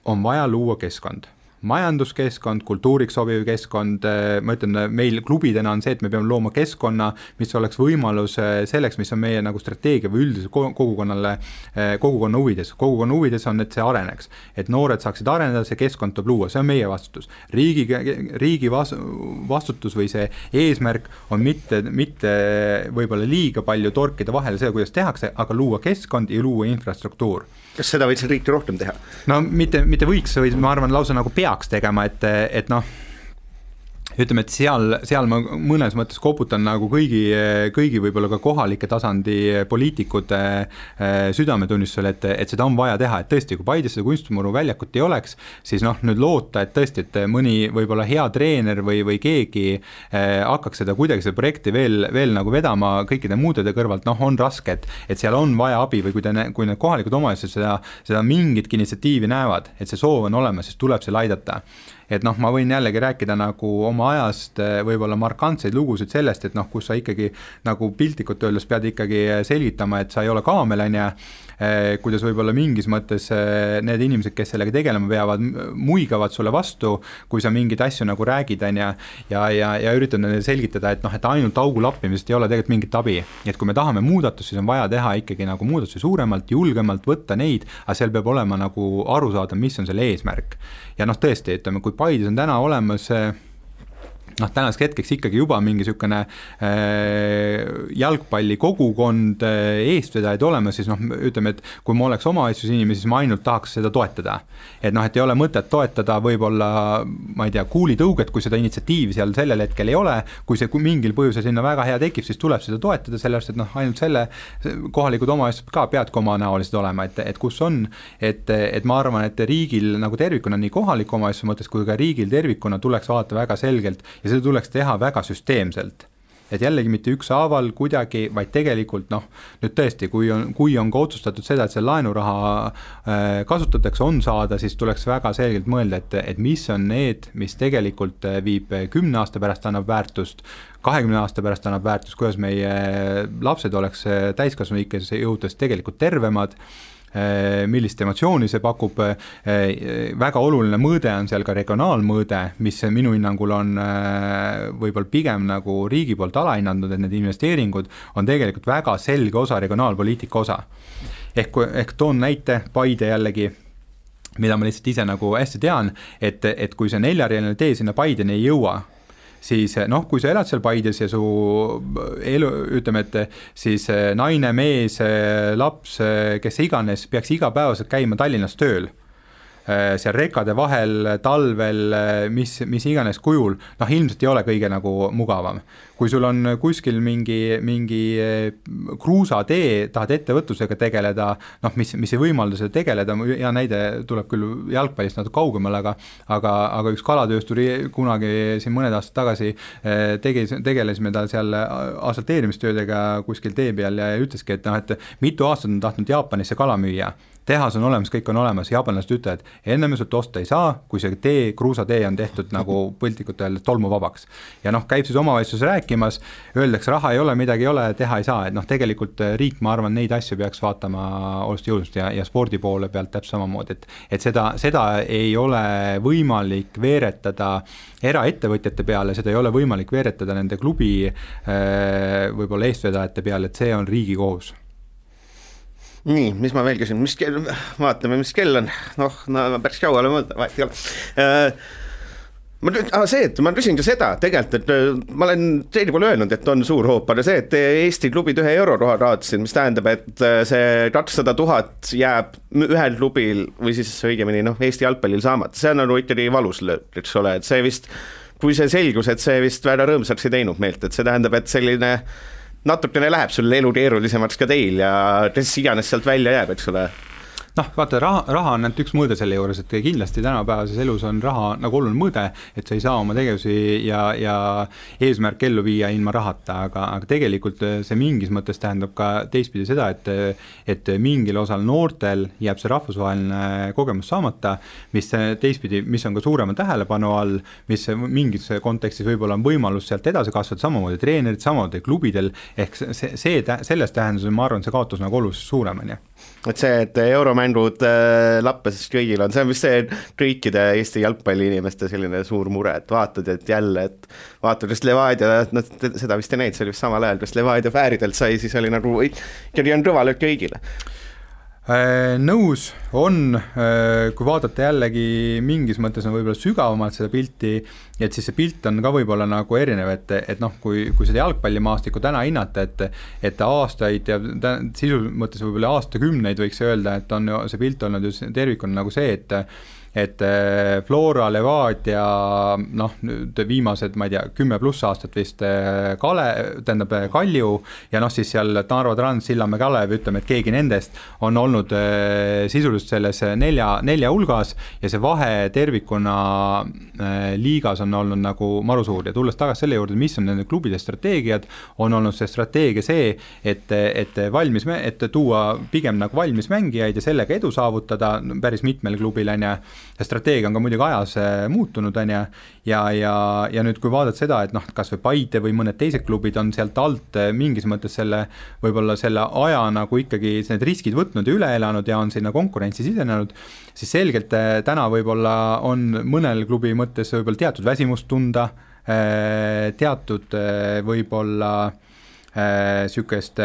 on vaja luua keskkond. majanduskeskkond, kultuuriks sobiv keskkond, ma ütlen, meil klubidena on see, et me peame looma keskkonna, mis oleks võimalus selleks, mis on meie nagu strateegia või üldise kogukonna huvides. Kogukonna huvides on, et see areneks, et noored saaksid areneda, see keskkond tuleb luua, see on meie vastutus. Riigi vastutus või see eesmärk on mitte võib-olla liiga palju torkida vahele see, kuidas tehakse, aga luua keskkond ja luua infrastruktuur. Kas seda võiks riiki rohkem teha? No mitte võiks, või ma arvan lausa nagu peaks tegema, et noh, ütleme, et seal ma mõnes mõttes koputan nagu kõigi võib-olla ka kohalike tasandi poliitikute südametunnistusel, et seda on vaja teha, et tõesti, kui Paides seda kunstimuru väljakut ei oleks, siis noh, nüüd loota, et tõesti, et mõni võib-olla hea treener või keegi hakkaks seda kuidagi seda projekti veel nagu vedama kõikide muudede kõrvalt, noh, on raske, et seal on vaja abi või kui need kohalikud omavalitsused seda mingitki initsiatiivi näevad, et see soov on olemas, siis tuleb seal aidata. Et noh, ma võin jällegi rääkida nagu oma ajast võib-olla markantseid lugusid sellest, et noh, kus sa ikkagi nagu piltlikult öeldes pead ikkagi selgitama, et sa ei ole kaamelanja, kuidas võib-olla mingis mõttes need inimesed, kes sellega tegelema peavad, muigavad sulle vastu, kui sa mingid asju nagu räägid ja üritad neile selgitada, et noh, et ainult augu lappimisest ei ole tegelikult mingit abi. Et kui me tahame muudatust, siis on vaja teha ikkagi nagu muudatusi suuremalt, julgemalt võtta neid, aga seal peab olema nagu aru saada, mis on selle eesmärk. Ja noh, tõesti, ütleme, kui Paides on täna olemas noh, tänaseks hetkeks ikkagi juba mingi sükene jalgpalli kogukond eestvedajaid olemas, siis noh, ütleme, et kui ma oleks omavalitsus inimesi, siis ma ainult tahaks seda toetada. Et noh, et ei ole mõtet toetada võib-olla, ma ei tea, kuulitõuget, kui seda initsiatiivi seal sellel hetkel ei ole, kui mingil põhjusel sinna väga hea tekib, siis tuleb seda toetada, sellepärast, et noh, ainult selle kohalikud omavalitsused ka peadki omanäolised olema, et kus on, et ma arvan, et riigil nagu tervikuna nii kohaliku omavalitsuse mõttes kui ka riigil tervikuna tuleks vaadata väga selgelt ja seda tuleks teha väga süsteemselt. Et jällegi mitte ükshaaval kuidagi, vaid tegelikult noh, nüüd tõesti, kui on ka otsustatud seda, et see laenuraha kasutatakse, on saada, siis tuleks väga selgelt mõelda, et mis on need, mis tegelikult viib 10 aasta pärast annab väärtust, 20 aasta pärast annab väärtust, kuidas meie lapsed oleks täiskasvanuikes jõudes tegelikult tervemad, millist emotsiooni see pakub, väga oluline mõõde on seal ka regionaalmõõde, mis minu hinnangul on võib-olla pigem nagu riigi poolt alahinnanud, et need investeeringud on tegelikult väga selge osa regionaalpoliitika osa. Ehk toon näite, Paide jällegi, mida ma lihtsalt ise nagu hästi tean, et kui see 4-realine tee sinna Paideni ei jõua, siis noh, kui sa elad seal Paides ja su elu, ütleme, et siis naine, mees, laps, kes iganes peaks igapäevaselt käima Tallinnas tööl, seal rekade vahel, talvel, mis iganes kujul, noh, ilmselt ei ole kõige nagu mugavam. Kui sul on kuskil mingi kruusatee, tahad ettevõtlusega tegeleda, noh, mis ei võimalda seda tegeleda, ja näide tuleb küll jalgpallist natuke kaugemal, aga üks kalatöösturi kunagi siin mõned aastad tagasi tegelesime tal seal asfalteerimistöödega kuskil tee peal ja ütleski, et noh, et mitu aastat on tahtnud Jaapanisse kala müüa. Tehas on olemas, kõik on olemas, jaapanlased ütlevad, enne me sult osta ei saa, kui see kruusatee on tehtud nagu põltikut öeldes tolmuvabaks. Ja noh, käib siis omavalitsus rääkimas, öeldakse, raha ei ole, midagi ei ole, teha ei saa, et noh, tegelikult riik, ma arvan, neid asju peaks vaatama oluliselt jõudmust ja spordi poole pealt täpselt samamoodi, et seda ei ole võimalik veeretada eraettevõtjate peale, seda ei ole võimalik veeretada nende klubi võib-olla eestvedajate peale, et see on riigi kohus. Nii, mis ma veel küsin, vaatame, mis kell on, noh, päris kauale mõelda, vahet ei ole. Ma küsin ka seda tegelikult, et ma olen teine poole öelnud, et on suur hoop, aga see, et Eesti klubid 1 euro raha raadsid, mis tähendab, et see 200 000 jääb ühel klubil või siis õigemini Eesti jalgpallil saamata, see on nagu ikkagi valus lööb, eks ole, et see vist, kui see selgus, et see vist väga rõõmsaks ei teinud meelt, et see tähendab, et selline natukene läheb sul elu keerulisemaks ka teil ja kes iganes sealt välja jääb, eks ole. Noh, vaata, raha on üks mõõde selle juures, et kindlasti tänapäevases elus on raha nagu oluline mõõde, et sa ei saa oma tegevusi ja eesmärk ellu viia ilma rahata, aga tegelikult see mingis mõttes tähendab ka teistpidi seda, et mingil osal noortel jääb see rahvusvaheline kogemus saamata, mis teistpidi, mis on ka suurema tähelepanu all, mis mingis kontekstis võib-olla on võimalus sealt edasi kasvada, samamoodi treenerid, samamoodi klubidel, ehk selles tähenduses ma arvan, see kaotus nagu oluliselt suurem on. et see, et euromängud lappes kõigil on, see on vist see kõikide Eesti jalgpalliinimeste selline suur mure, et vaatad, et jälle, et vaatad, just Levadia, nad seda vist ei näinud, see oli vist samal ajal, just Levadia Fääridelt sai, siis oli nagu, ikkagi on kõva löök kõigile. Nõus on, kui vaadata jällegi mingis mõttes on võib-olla sügavamalt seda pilti, et siis see pilt on ka võib-olla nagu erinev, et noh, kui seda jalgpallimaastikku täna hinnata, et aastaid ja sisu mõttes võib-olla aastakümneid võiks öelda, et on see pilt olnud ju tervikuna nagu see, et Flora, Levadia, noh, nüüd viimased, ma ei tea, 10+ aastat vist Kalju ja noh, siis seal Narva Trans, Sillamäe Kalev, ütleme, et keegi nendest on olnud sisuliselt selles nelja hulgas ja see vahe tervikuna liigas on olnud nagu maru suur ja tulles tagasi selle juurde, mis on nende klubide strateegiad, on olnud see strateegia see, et tuua pigem nagu valmis mängijaid ja sellega edu saavutada päris mitmel klubil on ja strateegia on ka muidugi ajas muutunud on ja nüüd kui vaadata seda, et noh, kas või Paide või mõned teised klubid on sealt alt mingis mõttes võib-olla selle aja nagu ikkagi need riskid võtnud ja üle elanud ja on sinna konkurentsi sisenenud, siis selgelt täna võib-olla on mõnel klubi mõttes võib-olla teatud väsimust tunda, teatud võib-olla sükest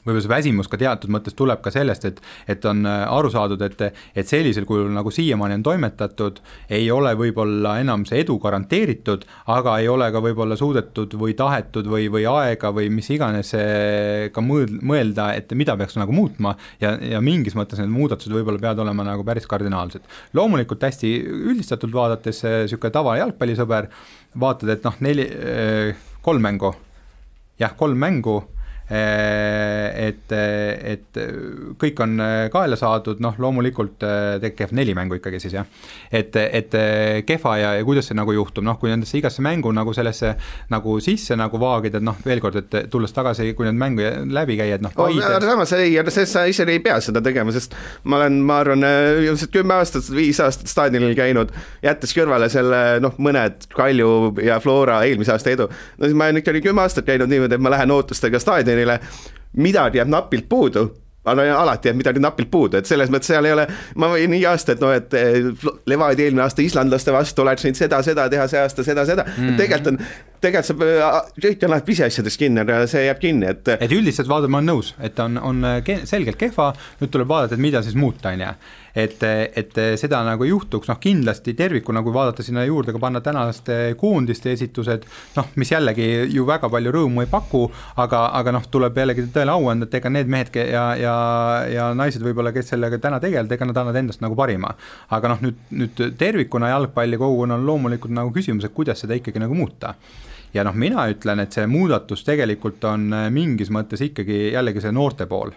võib-olla see väsimus ka teatud mõttes tuleb ka sellest, et on aru saadud, et sellisel kujul nagu siiamaani on toimetatud, ei ole võib-olla enam see edu garanteeritud, aga ei ole ka võib-olla suudetud või tahetud või aega või mis iganes ka mõelda, et mida peaks nagu muutma ja mingis mõttes need muudatused võib-olla peavad olema nagu päris kardinaalsed. Loomulikult hästi üldistatult vaadates selline tava jalgpallisõber, vaatad, et noh, 3 mängu, et kõik on kaela saadud, noh loomulikult kehv 4 mängu ikkagi siis jah, et kehva ja kuidas see nagu juhtub, noh kui nendesse igasse mängu nagu sellesse nagu sisse nagu vaagid, et noh veel kord, et tulles tagasi, kui need mängu läbi käied, noh samas sa ise ei pea seda tegema, sest ma arvan, 10 aastat, 5 aastat staadionil käinud, jättes kõrvale selle noh mõned Kalju ja Flora eelmise aasta edu, no siis ma olen ikka 10 aastat käinud niimoodi, et ma lähen ootustega staadionile, midagi jääb napilt puudu, alati jääb midagi napilt puudu, et selles mõttes seal ei ole, ma võin nii aasta, et noh, et Levadia eelmine aasta islandlaste vastu oleks nüüd seda teha, see aasta seda, tegelikult saab kõik on pisiasjades kinni, aga see jääb kinni, et üldiselt vaadata ma olen nõus, et on selgelt kehva, nüüd tuleb vaadata, et mida siis muuta on ja et seda nagu juhtuks, noh kindlasti tervikuna, kui vaadata sinna juurde ka panna tänaste koondiste esitused, noh mis jällegi ju väga palju rõõmu ei paku, aga noh tuleb jällegi tõele au anda, et ega need mehed ja naised võib-olla, kes sellega täna tegelevad, ega nad annavad endast nagu parima, aga noh nüüd tervikuna jalgpalli kogukonna on loomulikult nagu küsimus, et kuidas seda ikkagi nagu muuta ja noh mina ütlen, et see muudatus tegelikult on mingis mõttes ikkagi jällegi see noorte pool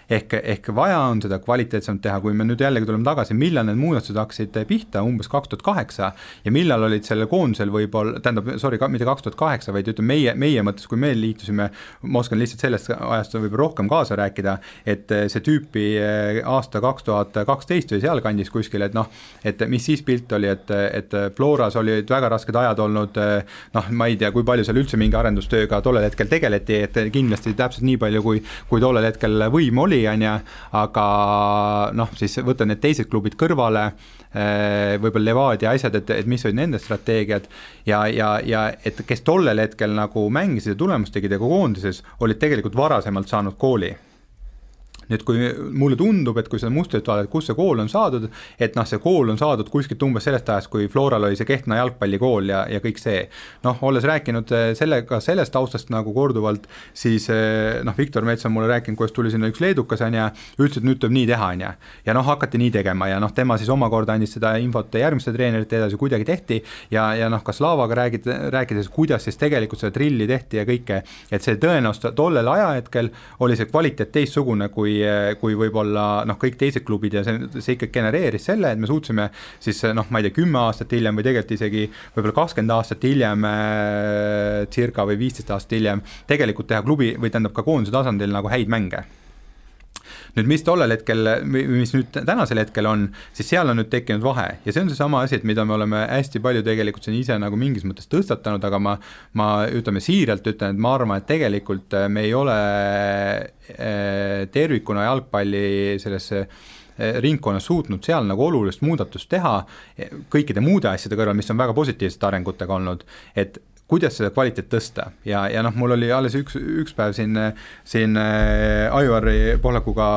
ehk vaja on seda kvaliteetsemalt teha, kui me nüüd jällegi tuleme tagasi, millal need muudatused hakkasid pihta, umbes 2008 ja millal olid selle koondisel võib-olla, mitte 2008, vaid ütleme meie mõttes, kui me liitusime, ma oskan lihtsalt sellest ajast võib-olla rohkem kaasa rääkida, et see tüüpi aasta 2012 või seal kandis kuskil, et noh, et mis siis pilt oli, et Floras oli väga rasked ajad olnud, noh, ma ei tea, kui palju seal üldse mingi arendustööga tollel hetkel tegeleti, et kindlasti täpselt nii palju, kui tollel hetkel võim oli, aga noh, siis võtta need teised klubid kõrvale, võib-olla Levadia asjad, et mis olid nende strateegiad ja et kes tollel hetkel nagu mängisid ja tulemust tegid ja koondises, olid tegelikult varasemalt saanud kooli. Nüüd kui mulle tundub, et kui seda mustrit vaadata, kus see kool on saadud, et noh, see kool on saadud kuskilt umbes sellest ajast, kui Floral oli see Kehtna jalgpallikool ja kõik see. Noh, olles rääkinud sellest taustast nagu korduvalt, siis noh, Viktor Mets on mulle rääkinud, kuidas tuli sinna üks leedukas ja ütles, et nüüd tuleb nii teha ja noh, hakati nii tegema ja noh, tema siis omakorda andis seda infot järgmiste treenerite edasi kuidagi tehti ja noh, ka Slavaga rääkides, kuidas siis tegelikult seda trilli tehti ja kõike, et see tõenäoliselt tollel ajahetkel oli see kvaliteet teistsugune kui võib-olla noh, kõik teised klubid ja see ikka genereeris selle, et me suutsime siis noh, ma ei tea, 10 aastat hiljem või tegelikult isegi võib-olla 20 aastat hiljem circa või 15 aastat hiljem tegelikult teha klubi või tähendab ka koondise tasandil nagu häid mänge. nüüd mis tollel hetkel, mis nüüd tänasel hetkel on, siis seal on nüüd tekkinud vahe ja see on see sama asi, et mida me oleme hästi palju tegelikult siin ise nagu mingis mõttes tõstatanud, aga ma ütleme siiralt ütlen, et ma arvan, et tegelikult me ei ole tervikuna jalgpalli sellesse ringkonnas suutnud seal nagu olulist muudatust teha kõikide muude asjade kõrval, mis on väga positiivsete arengutega olnud, et kuidas seda kvaliteet tõsta ja noh, mul oli alles üks päev siin Aivari Pohlakuga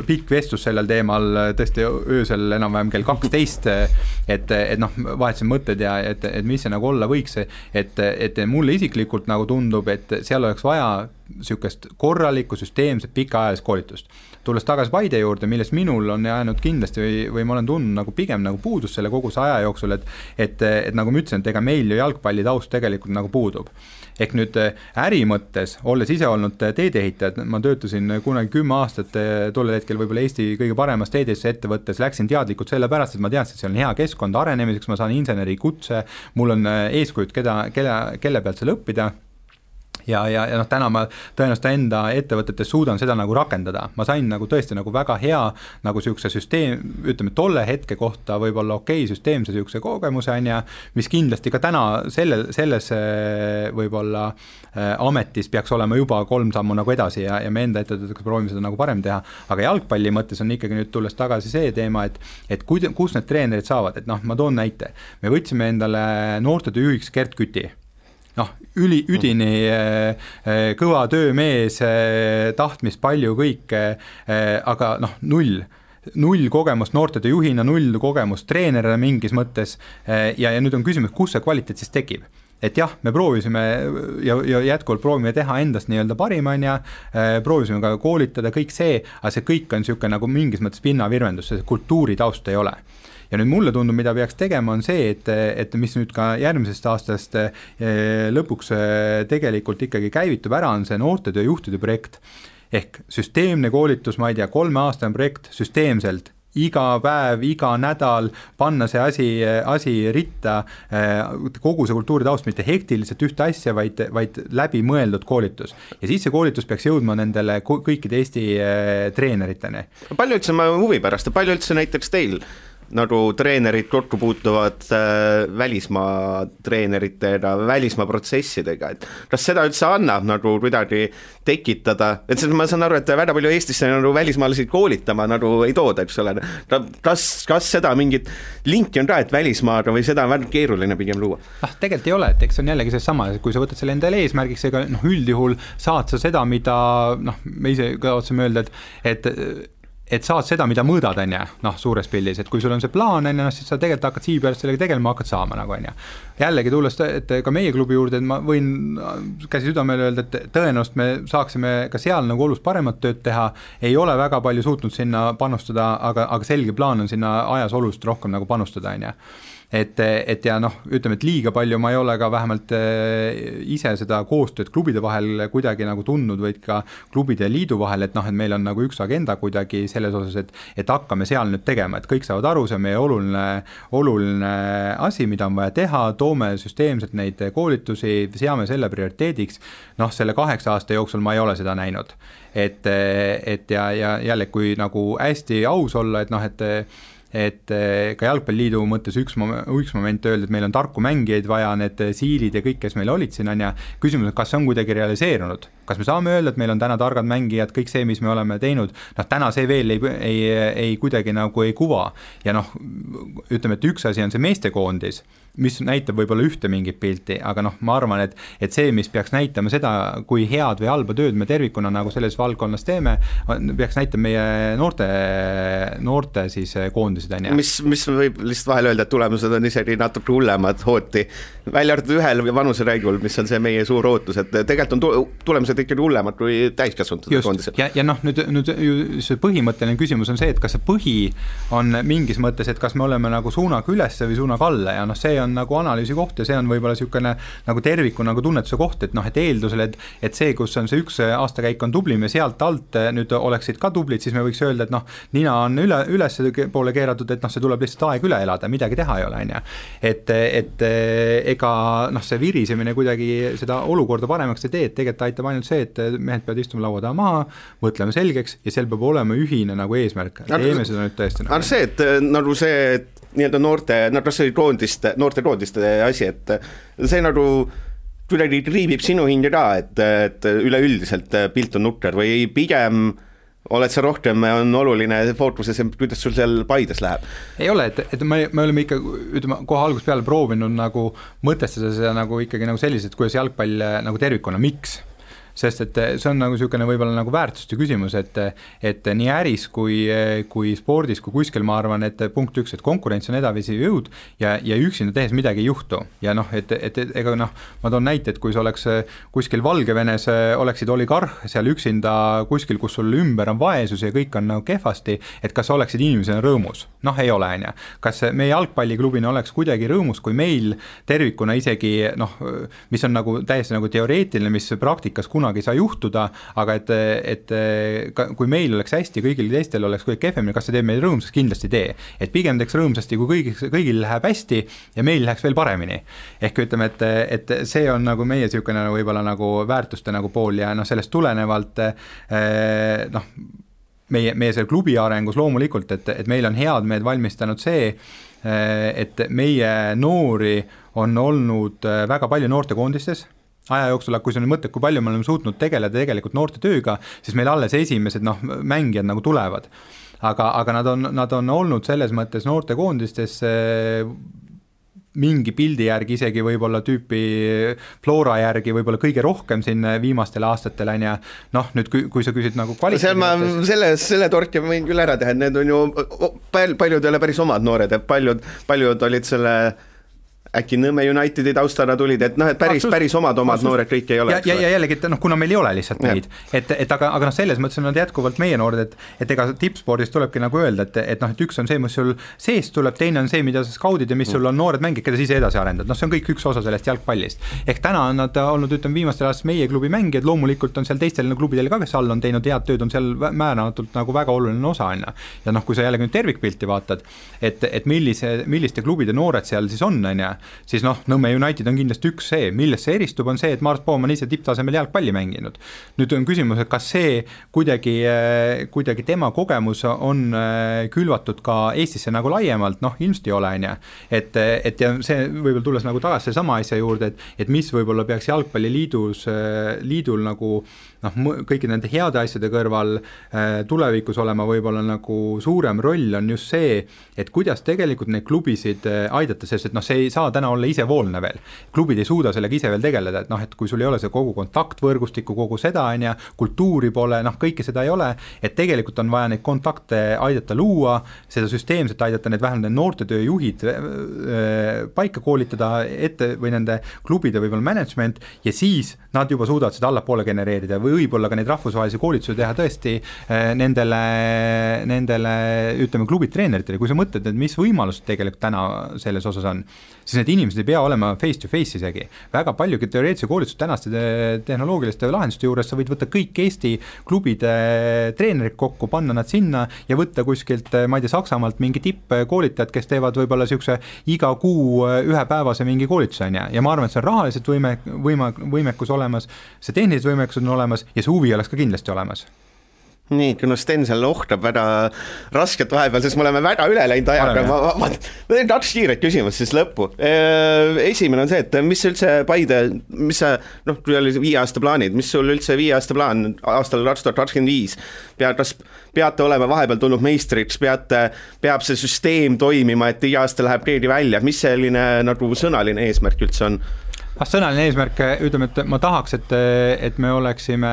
pikk vestlus sellel teemal tõesti öösel enam-vähem kell 12, et noh, vahetasin mõtted ja et mis see nagu olla võiks, et mulle isiklikult nagu tundub, et seal oleks vaja sükest korralikku, süsteemset, pikaajalist koolitust. Tulles tagasi Paide juurde, millest minul on jäänud kindlasti või ma olen tundnud nagu pigem nagu puudus selle kogu see aja jooksul, et nagu ma ütlesin, et ega meil ju jalgpalli taust tegelikult nagu puudub. Ehk nüüd äri mõttes, olles ise olnud teedeehitajad, ma töötasin kunagi 10 aastat tollel hetkel võib-olla Eesti kõige paremas teedesse ettevõttes, läksin teadlikult selle pärast, et ma teadsin, et see on hea keskkond arenemiseks, ma saan inseneri kutse, mul on eeskujud, kelle pealt seal õppida. Ja noh, täna ma tõenäoliselt enda ettevõtetes suudan seda nagu rakendada. Ma sain nagu tõesti nagu väga hea nagu sihukese süsteem, ütleme tolle hetke kohta võib-olla süsteemse sihukese kogemuse on ja mis kindlasti ka täna selles võib-olla ametis peaks olema juba 3 sammu nagu edasi ja me enda ettevõtetega proovime seda nagu parem teha, aga jalgpalli mõttes on ikkagi nüüd tulles tagasi see teema, et kus need treenerid saavad, et noh, ma toon näite. Me võtsime endale noortetöö juhiks Gert Küti. Noh, üdini kõva töömees, tahtmist palju kõike, aga noh, null kogemust noortetöö juhina, 0 kogemust treenerina mingis mõttes ja nüüd on küsimus, kus see kvaliteet siis tekib. Et jah, me proovisime ja jätkuvalt proovime teha endast nii-öelda parimanja, proovisime ka koolitada kõik see, aga see kõik on niisugune nagu mingis mõttes pinnavirvendus, see kultuuri taust ei ole. Ja nüüd mulle tundub, mida peaks tegema, on see, et mis nüüd ka järgmisest aastast lõpuks tegelikult ikkagi käivitub ära, on see noortetöö juhtide projekt. Ehk süsteemne koolitus, ma ei tea, 3-aastane projekt süsteemselt, iga päev, iga nädal panna see asi ritta, kogu see kultuuri taust, mitte hektiliselt ühte asja, vaid läbi mõeldud koolitus. Ja siis see koolitus peaks jõudma nendele kõikide Eesti treeneriteni. Palju üldse ma huvi pärast, palju üldse näiteks teil nagu treenerid kokku puutuvad välismaa treeneritega, välismaa protsessidega, et kas seda üldse annab nagu kuidagi tekitada, et ma saan aru, et väga palju Eestisse nagu välismaalasi koolitama nagu ei tooda, eks ole, kas seda mingit linki on ka, et välismaaga või seda on väga keeruline pigem luua? Tegelikult ei ole, et eks on jällegi see sama, kui sa võtad selle endale eesmärgiks, ega üldjuhul saad sa seda, mida me ise ka otsime öelda, et saad seda, mida mõõdad, suures pildis, et kui sul on see plaan, siis sa tegelikult hakkad siia peale sellega tegelema, hakkad saama nagu, Jällegi tulles, et ka meie klubi juurde, et ma võin käsi südamele öelda, et tõenäoliselt me saaksime ka seal nagu olust paremat tööd teha, ei ole väga palju suutnud sinna panustada, aga selge plaan on sinna ajas olust rohkem nagu panustada, Et ja noh, ütleme, et liiga palju ma ei ole ka vähemalt ise seda koostööd klubide vahel kuidagi nagu tundnud, vaid ka klubide ja liidu vahel, et meil on nagu üks agenda kuidagi selles osas, et hakkame seal nüüd tegema, et kõik saavad aru, see on meie oluline asi, mida on vaja teha, toome süsteemselt neid koolitusi, seame selle prioriteediks, selle 8 aasta jooksul ma ei ole seda näinud. Et ja jälle, kui nagu hästi aus olla, et ka jalgpalliliidu mõttes üks moment öelda, et meil on tarku mängijaid vaja, need siilid ja kõik, kes meil olid siin, küsimus, kas see on kuidagi realiseerunud, kas me saame öelda, et meil on täna targad mängijad, kõik see, mis me oleme teinud, täna see veel ei kuidagi nagu ei kuva ja ütleme, et üks asi on see meestekoondis, mis näitab võib-olla ühte mingit pilti, aga ma arvan, et see, mis peaks näitama seda, kui head või halba tööd me tervikuna nagu selles valdkonnas teeme, peaks näitama meie noorte siis koondisid. Mis võib lihtsalt vahel öelda, et tulemused on isegi natuke hullemad hooti, välja arvatud ühel vanuseräigul, mis on see meie suur ootus, et tegelikult on tulemused ikkagi hullemad kui täiskasvanud koondised. Ja nüüd see põhimõtteline küsimus on see, et kas see põhi on mingis mõttes, et kas me oleme nagu suunaga ülesse või suunaga alla ja see on nagu analüüsi koht ja see on võib-olla niisugune nagu terviku nagu tunnetuse koht, et noh, et eeldusel, et see, kus on see üks aastakäik on tublim ja sealt alt nüüd oleksid ka tublid, siis me võiks öelda, et noh, nina on üles poole keeratud, et noh, see tuleb lihtsalt aeg üle elada, midagi teha ei ole, on ju. Et ega noh, see virisemine kuidagi seda olukorda paremaks ei tee, et tegelikult aitab ainult see, et mehed peavad istuma laua taha maha, mõtlema selgeks ja seal peab olema ühine nagu eesmärk. Teeme seda nüüd tõesti. Aga see, et nagu see nii-öelda noorte koondiste asi, et see nagu kuidagi triibib sinu hinge ka, et üleüldiselt pilt on nukker või pigem oled sa rohkem, on oluline fookuses, kuidas sul seal Paides läheb? Ei ole, et me oleme ikka, ütleme, kohe algust peale proovinud nagu mõtestada seda nagu ikkagi nagu selliselt, kuidas jalgpall nagu tervikuna, miks? Sest et see on nagu niisugune võib-olla nagu väärtuste küsimus, et nii äris kui spordis kui kuskil ma arvan, et punkt üks, et konkurents on edavisi jõud ja üksinda tehes midagi ei juhtu ja noh, et ega noh, ma toon näite, et kui sa oleks kuskil Valgevenes oleksid oligarh seal üksinda kuskil, kus sul ümber on vaesus ja kõik on nagu kehvasti, et kas oleksid inimesena rõõmus? Noh, ei ole, on ju. Kas meie jalgpalliklubina oleks kuidagi rõõmus, kui meil tervikuna isegi noh, mis on nagu täiesti nagu teoreetiline, mis praktikas kunagi ei saa juhtuda, aga et kui meil oleks hästi, kõigil teistel oleks kuidagi kehvemini, kas see teeb meil rõõmsaks? Kindlasti tee. Et pigem teeks rõõmsasti, kui kõigil läheb hästi ja meil läheks veel paremini. Ehk ütleme, et see on nagu meie niisugune võib-olla nagu väärtuste nagu pool ja noh, sellest tulenevalt noh, meie selle klubi arengus loomulikult, et meil on head meed valmistanud see, et meie noori on olnud väga palju noortekoondistes aja jooksul, kui see on mõte, kui palju me oleme suutnud tegeleda tegelikult noorte tööga, siis meil alles esimesed noh, mängijad nagu tulevad. Aga nad on olnud selles mõttes noortekoondistes mingi pildi järgi isegi võib-olla tüüpi Flora järgi võib-olla kõige rohkem siin viimastel aastatel on ja noh, nüüd kui sa küsid nagu kvaliteedi selle torki ma võin küll ära teha, et need on ju paljud ei ole päris omad noored, et paljud olid selle äkki Nõmme Unitedi taustana tulid, et noh, et päris omad noored kõik ei ole. Ja jällegi, et noh, kuna meil ei ole lihtsalt neid, aga noh, selles mõttes on nad jätkuvalt meie noored, et ega tippspordis tulebki nagu öelda, et noh, et üks on see, mis sul sees tuleb, teine on see, mida sa skaudid ja mis sul on noored mängid, keda siis edasi arendad. Noh, see on kõik üks osa sellest jalgpallist. Ehk täna on nad olnud, ütleme, viimastel aastas meie klubi mängijad, loomulikult on seal teistel klubidel ka, kes all on teinud head tööd, on seal määramatult nagu väga oluline osa. Ja noh, kui sa jällegi nüüd tervikpilti vaatad, et milliste klubide noored seal siis on, siis noh, Nõmme United on kindlasti üks see, millest see eristub, on see, et Mart Poom on ise tipptasemel jalgpalli mänginud. Nüüd on küsimus, et kas see kuidagi tema kogemus on külvatud ka Eestisse nagu laiemalt, noh, ilmselt ei ole, et ja see võib-olla tulles nagu tagasi sama asja juurde, et mis võib-olla peaks jalgpalliliidul nagu noh, kõiki nende heade asjade kõrval tulevikus olema võib-olla nagu suurem roll on just see, et kuidas tegelikult neid klubisid aidata, sest et noh, see ei saa täna olla isevoolne veel. Klubid ei suuda sellega ise veel tegeleda, et noh, et kui sul ei ole see kogu kontaktvõrgustikku, kogu seda on ja kultuuri pole, noh, kõike seda ei ole, et tegelikult on vaja neid kontakte aidata luua, seda süsteemselt aidata need vähemalt noortetööjuhid paika koolitada ette või nende klubide võib-olla management ja siis nad juba suudavad seda allapoole genereerida või võib-olla ka neid rahvusvahelisi koolitusi teha tõesti nendele ütleme klubitreeneritele, kui sa mõtled, et mis võimalused tegelikult täna selles osas on, siis need inimesed ei pea olema face to face isegi. Väga paljugi teoreetilise koolitust tänaste tehnoloogiliste lahenduste juures sa võid võtta kõik Eesti klubide treenerid kokku, panna nad sinna ja võtta kuskilt, ma ei tea, Saksamaalt mingi tippkoolitajad, kes teevad võib-olla niisuguse iga kuu ühepäevase mingi koolituse ja ma arvan, et see on rahaliselt võimekus olemas, see tehnilised võimekus on olemas ja see huvi oleks ka kindlasti olemas. Nii, kuna Sten seal ohtab väga rasket vahepeal, sest me oleme väga üle läinud ajaga, ma teen 2 kiiret küsimust siis lõppu. Esimene on see, et mis üldse Paide, mis sa, noh, kui oli 5 aasta plaanid, mis sul üldse 5 aasta plaan aastal 2025? Kas peate olema vahepeal tulnud meistriks, peab see süsteem toimima, et iga aasta läheb keegi välja, mis selline nagu sõnaline eesmärk üldse on? Sõnaline eesmärk, ütleme, et ma tahaks, et me oleksime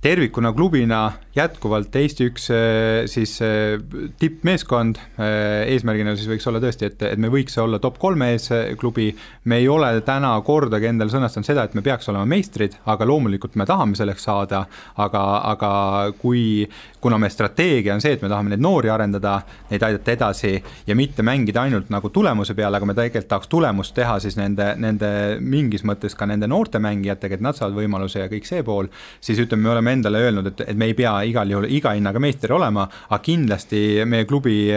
tervikuna klubina jätkuvalt Eesti üks siis tippmeeskond, eesmärgina siis võiks olla tõesti, et me võiks olla top 3 ees klubi, me ei ole täna kordagi endal sõnastanud seda, et me peaks olema meistrid, aga loomulikult me tahame selleks saada, aga kuna me strateegia on see, et me tahame neid noori arendada, neid aidata edasi ja mitte mängida ainult nagu tulemuse peale, aga me tegelikult tahaks tulemust teha siis nende mingis mõttes ka nende noorte mängijatega, et nad saavad võimaluse ja kõik see pool, siis ütleme, me oleme endale öelnud, et me ei pea igal juhul iga hinnaga meister olema, aga kindlasti meie klubi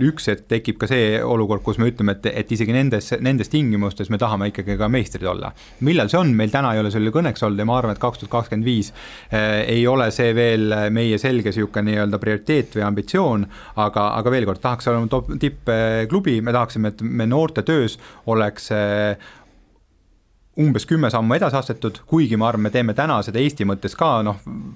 üks hetk tekib ka see olukord, kus me ütleme, et isegi nendes tingimustes me tahame ikkagi ka meistrid olla. Millal see on? Meil täna ei ole selle kõneks olnud ja ma arvan, et 2025 ei ole see veel meie selge siuke nii-öelda prioriteet või ambitsioon, aga veel kord, tahaks olema tippklubi, me tahaksime, et me noorte töös oleks umbes 10 sammu edasi astetud, kuigi ma arvan, me teeme täna seda Eesti mõttes ka,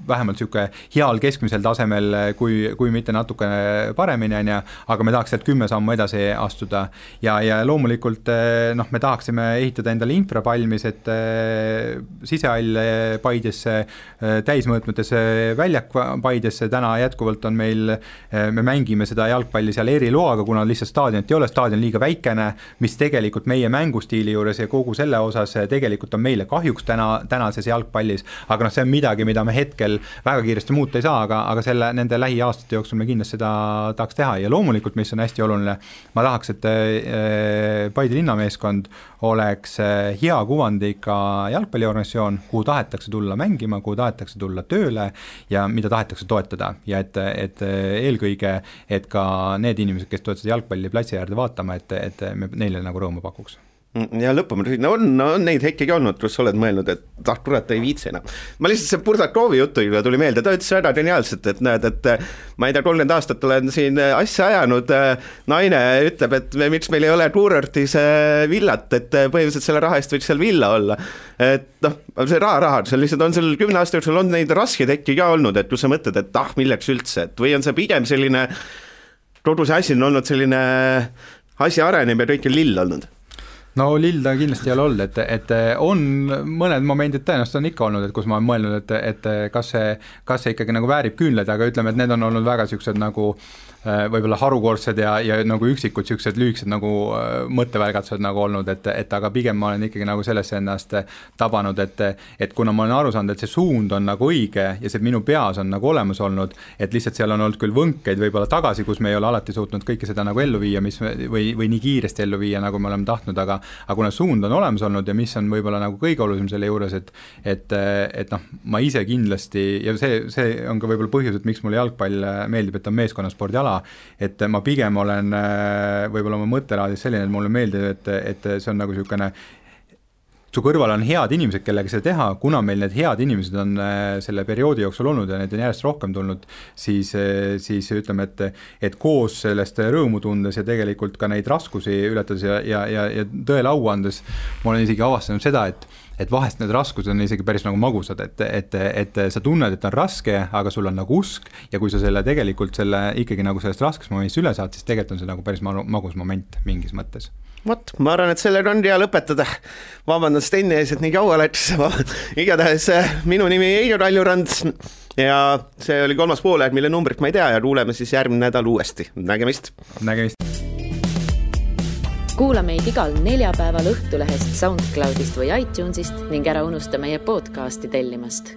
vähemalt siuke heal keskmisel tasemel, kui mitte natukene paremini, aga me tahaks sealt 10 sammu edasi astuda ja loomulikult me tahaksime ehitada endale infra valmis, et sisehall Paidesse, täismõõtmetes väljak Paidesse, täna jätkuvalt on meil, me mängime seda jalgpalli seal eriloaga, kuna lihtsalt staadionit ei ole, staadion liiga väikene, mis tegelikult meie mängustiili juures ja kogu selle osas tegelikult on meile kahjuks tänases jalgpallis, aga see on midagi, mida me hetkel väga kiiresti muuta ei saa, aga nende lähiaastate jooksul me kindlasti seda tahaks teha ja loomulikult, mis on hästi oluline, ma tahaks, et Paide linnameeskond oleks hea kuvandiga jalgpalliorganisatsioon, kuhu tahetakse tulla mängima, kuhu tahetakse tulla tööle ja mida tahetakse toetada ja et eelkõige, et ka need inimesed, kes toetasid jalgpalli platsi äärde vaatama, et me neile nagu rõõmu pakuks. Ja lõpuma, on neid hetkegi olnud, kus oled mõelnud, et kurat ei viitsena. Ma lihtsalt see Burdakovi jutu tuli meelde, ta ütles väga geniaalselt, et näed, et ma ei tea, 30 aastat olen siin asja ajanud, naine ütleb, et miks meil ei ole kuurortis villat, et põhimõtteliselt selle raha eest võiks seal villa olla. Et see raha, see lihtsalt on seal 10 aasta jooksul on neid raskeid hetki ka olnud, et kui sa mõtled, et milleks üldse, et või on see pigem selline, kogu see asi on olnud selline asja arenem ja kõik on lill olnud. No lill ta kindlasti ei ole olnud, et on mõned momendid tõenäoliselt on ikka olnud, et kus ma olen mõelnud, et kas see ikkagi nagu väärib küünleid, aga ütleme, et need on olnud väga siuksed nagu võib-olla harukordsed ja nagu üksikud siuksed lühikesed nagu mõttevälgatused nagu olnud, et aga pigem ma olen ikkagi nagu sellesse ennast tabanud, et kuna ma olen aru saanud, et see suund on nagu õige ja see minu peas on nagu olemas olnud, et lihtsalt seal on olnud küll võnkeid võib-olla tagasi, kus me ei ole alati suutnud kõike seda nagu ellu viia, või nii kiiresti ellu viia, nagu me oleme tahtnud, aga kuna suund on olemas olnud ja mis on võib-olla nagu kõige olulisem selle juures, et ma ise kindlasti ja see on ka võib-olla põhjus, et miks mulle jalgpall meeldib, et on meeskonnaspordi ala, et ma pigem olen võib-olla oma mõttelaadis selline, et mulle meeldib, et see on nagu niisugune su kõrval on head inimesed, kellega seda teha, kuna meil need head inimesed on selle perioodi jooksul olnud ja need on järjest rohkem tulnud, siis ütleme, et koos sellest rõõmu tundes ja tegelikult ka neid raskusi ületades ja tõele au andes, ma olen isegi avastanud seda, et vahest need raskused on isegi päris nagu magusad, et sa tunned, et on raske, aga sul on nagu usk ja kui sa tegelikult ikkagi nagu sellest raskest momendist üle saad, siis tegelikult on see nagu päris magus moment mingis mõttes. Vot, ma arvan, et sellega on hea lõpetada. Vabandan Steni ees, et nii kaua läks. Igatahes minu nimi Eiro Raljurand ja see oli 3. poolaeg, mille numbrit ma ei tea ja kuuleme siis järgmine nädal uuesti. Nägemist! Kuula meid igal neljapäeval Õhtulehest, SoundCloudist või iTunesist ning ära unusta meie podcasti tellimast.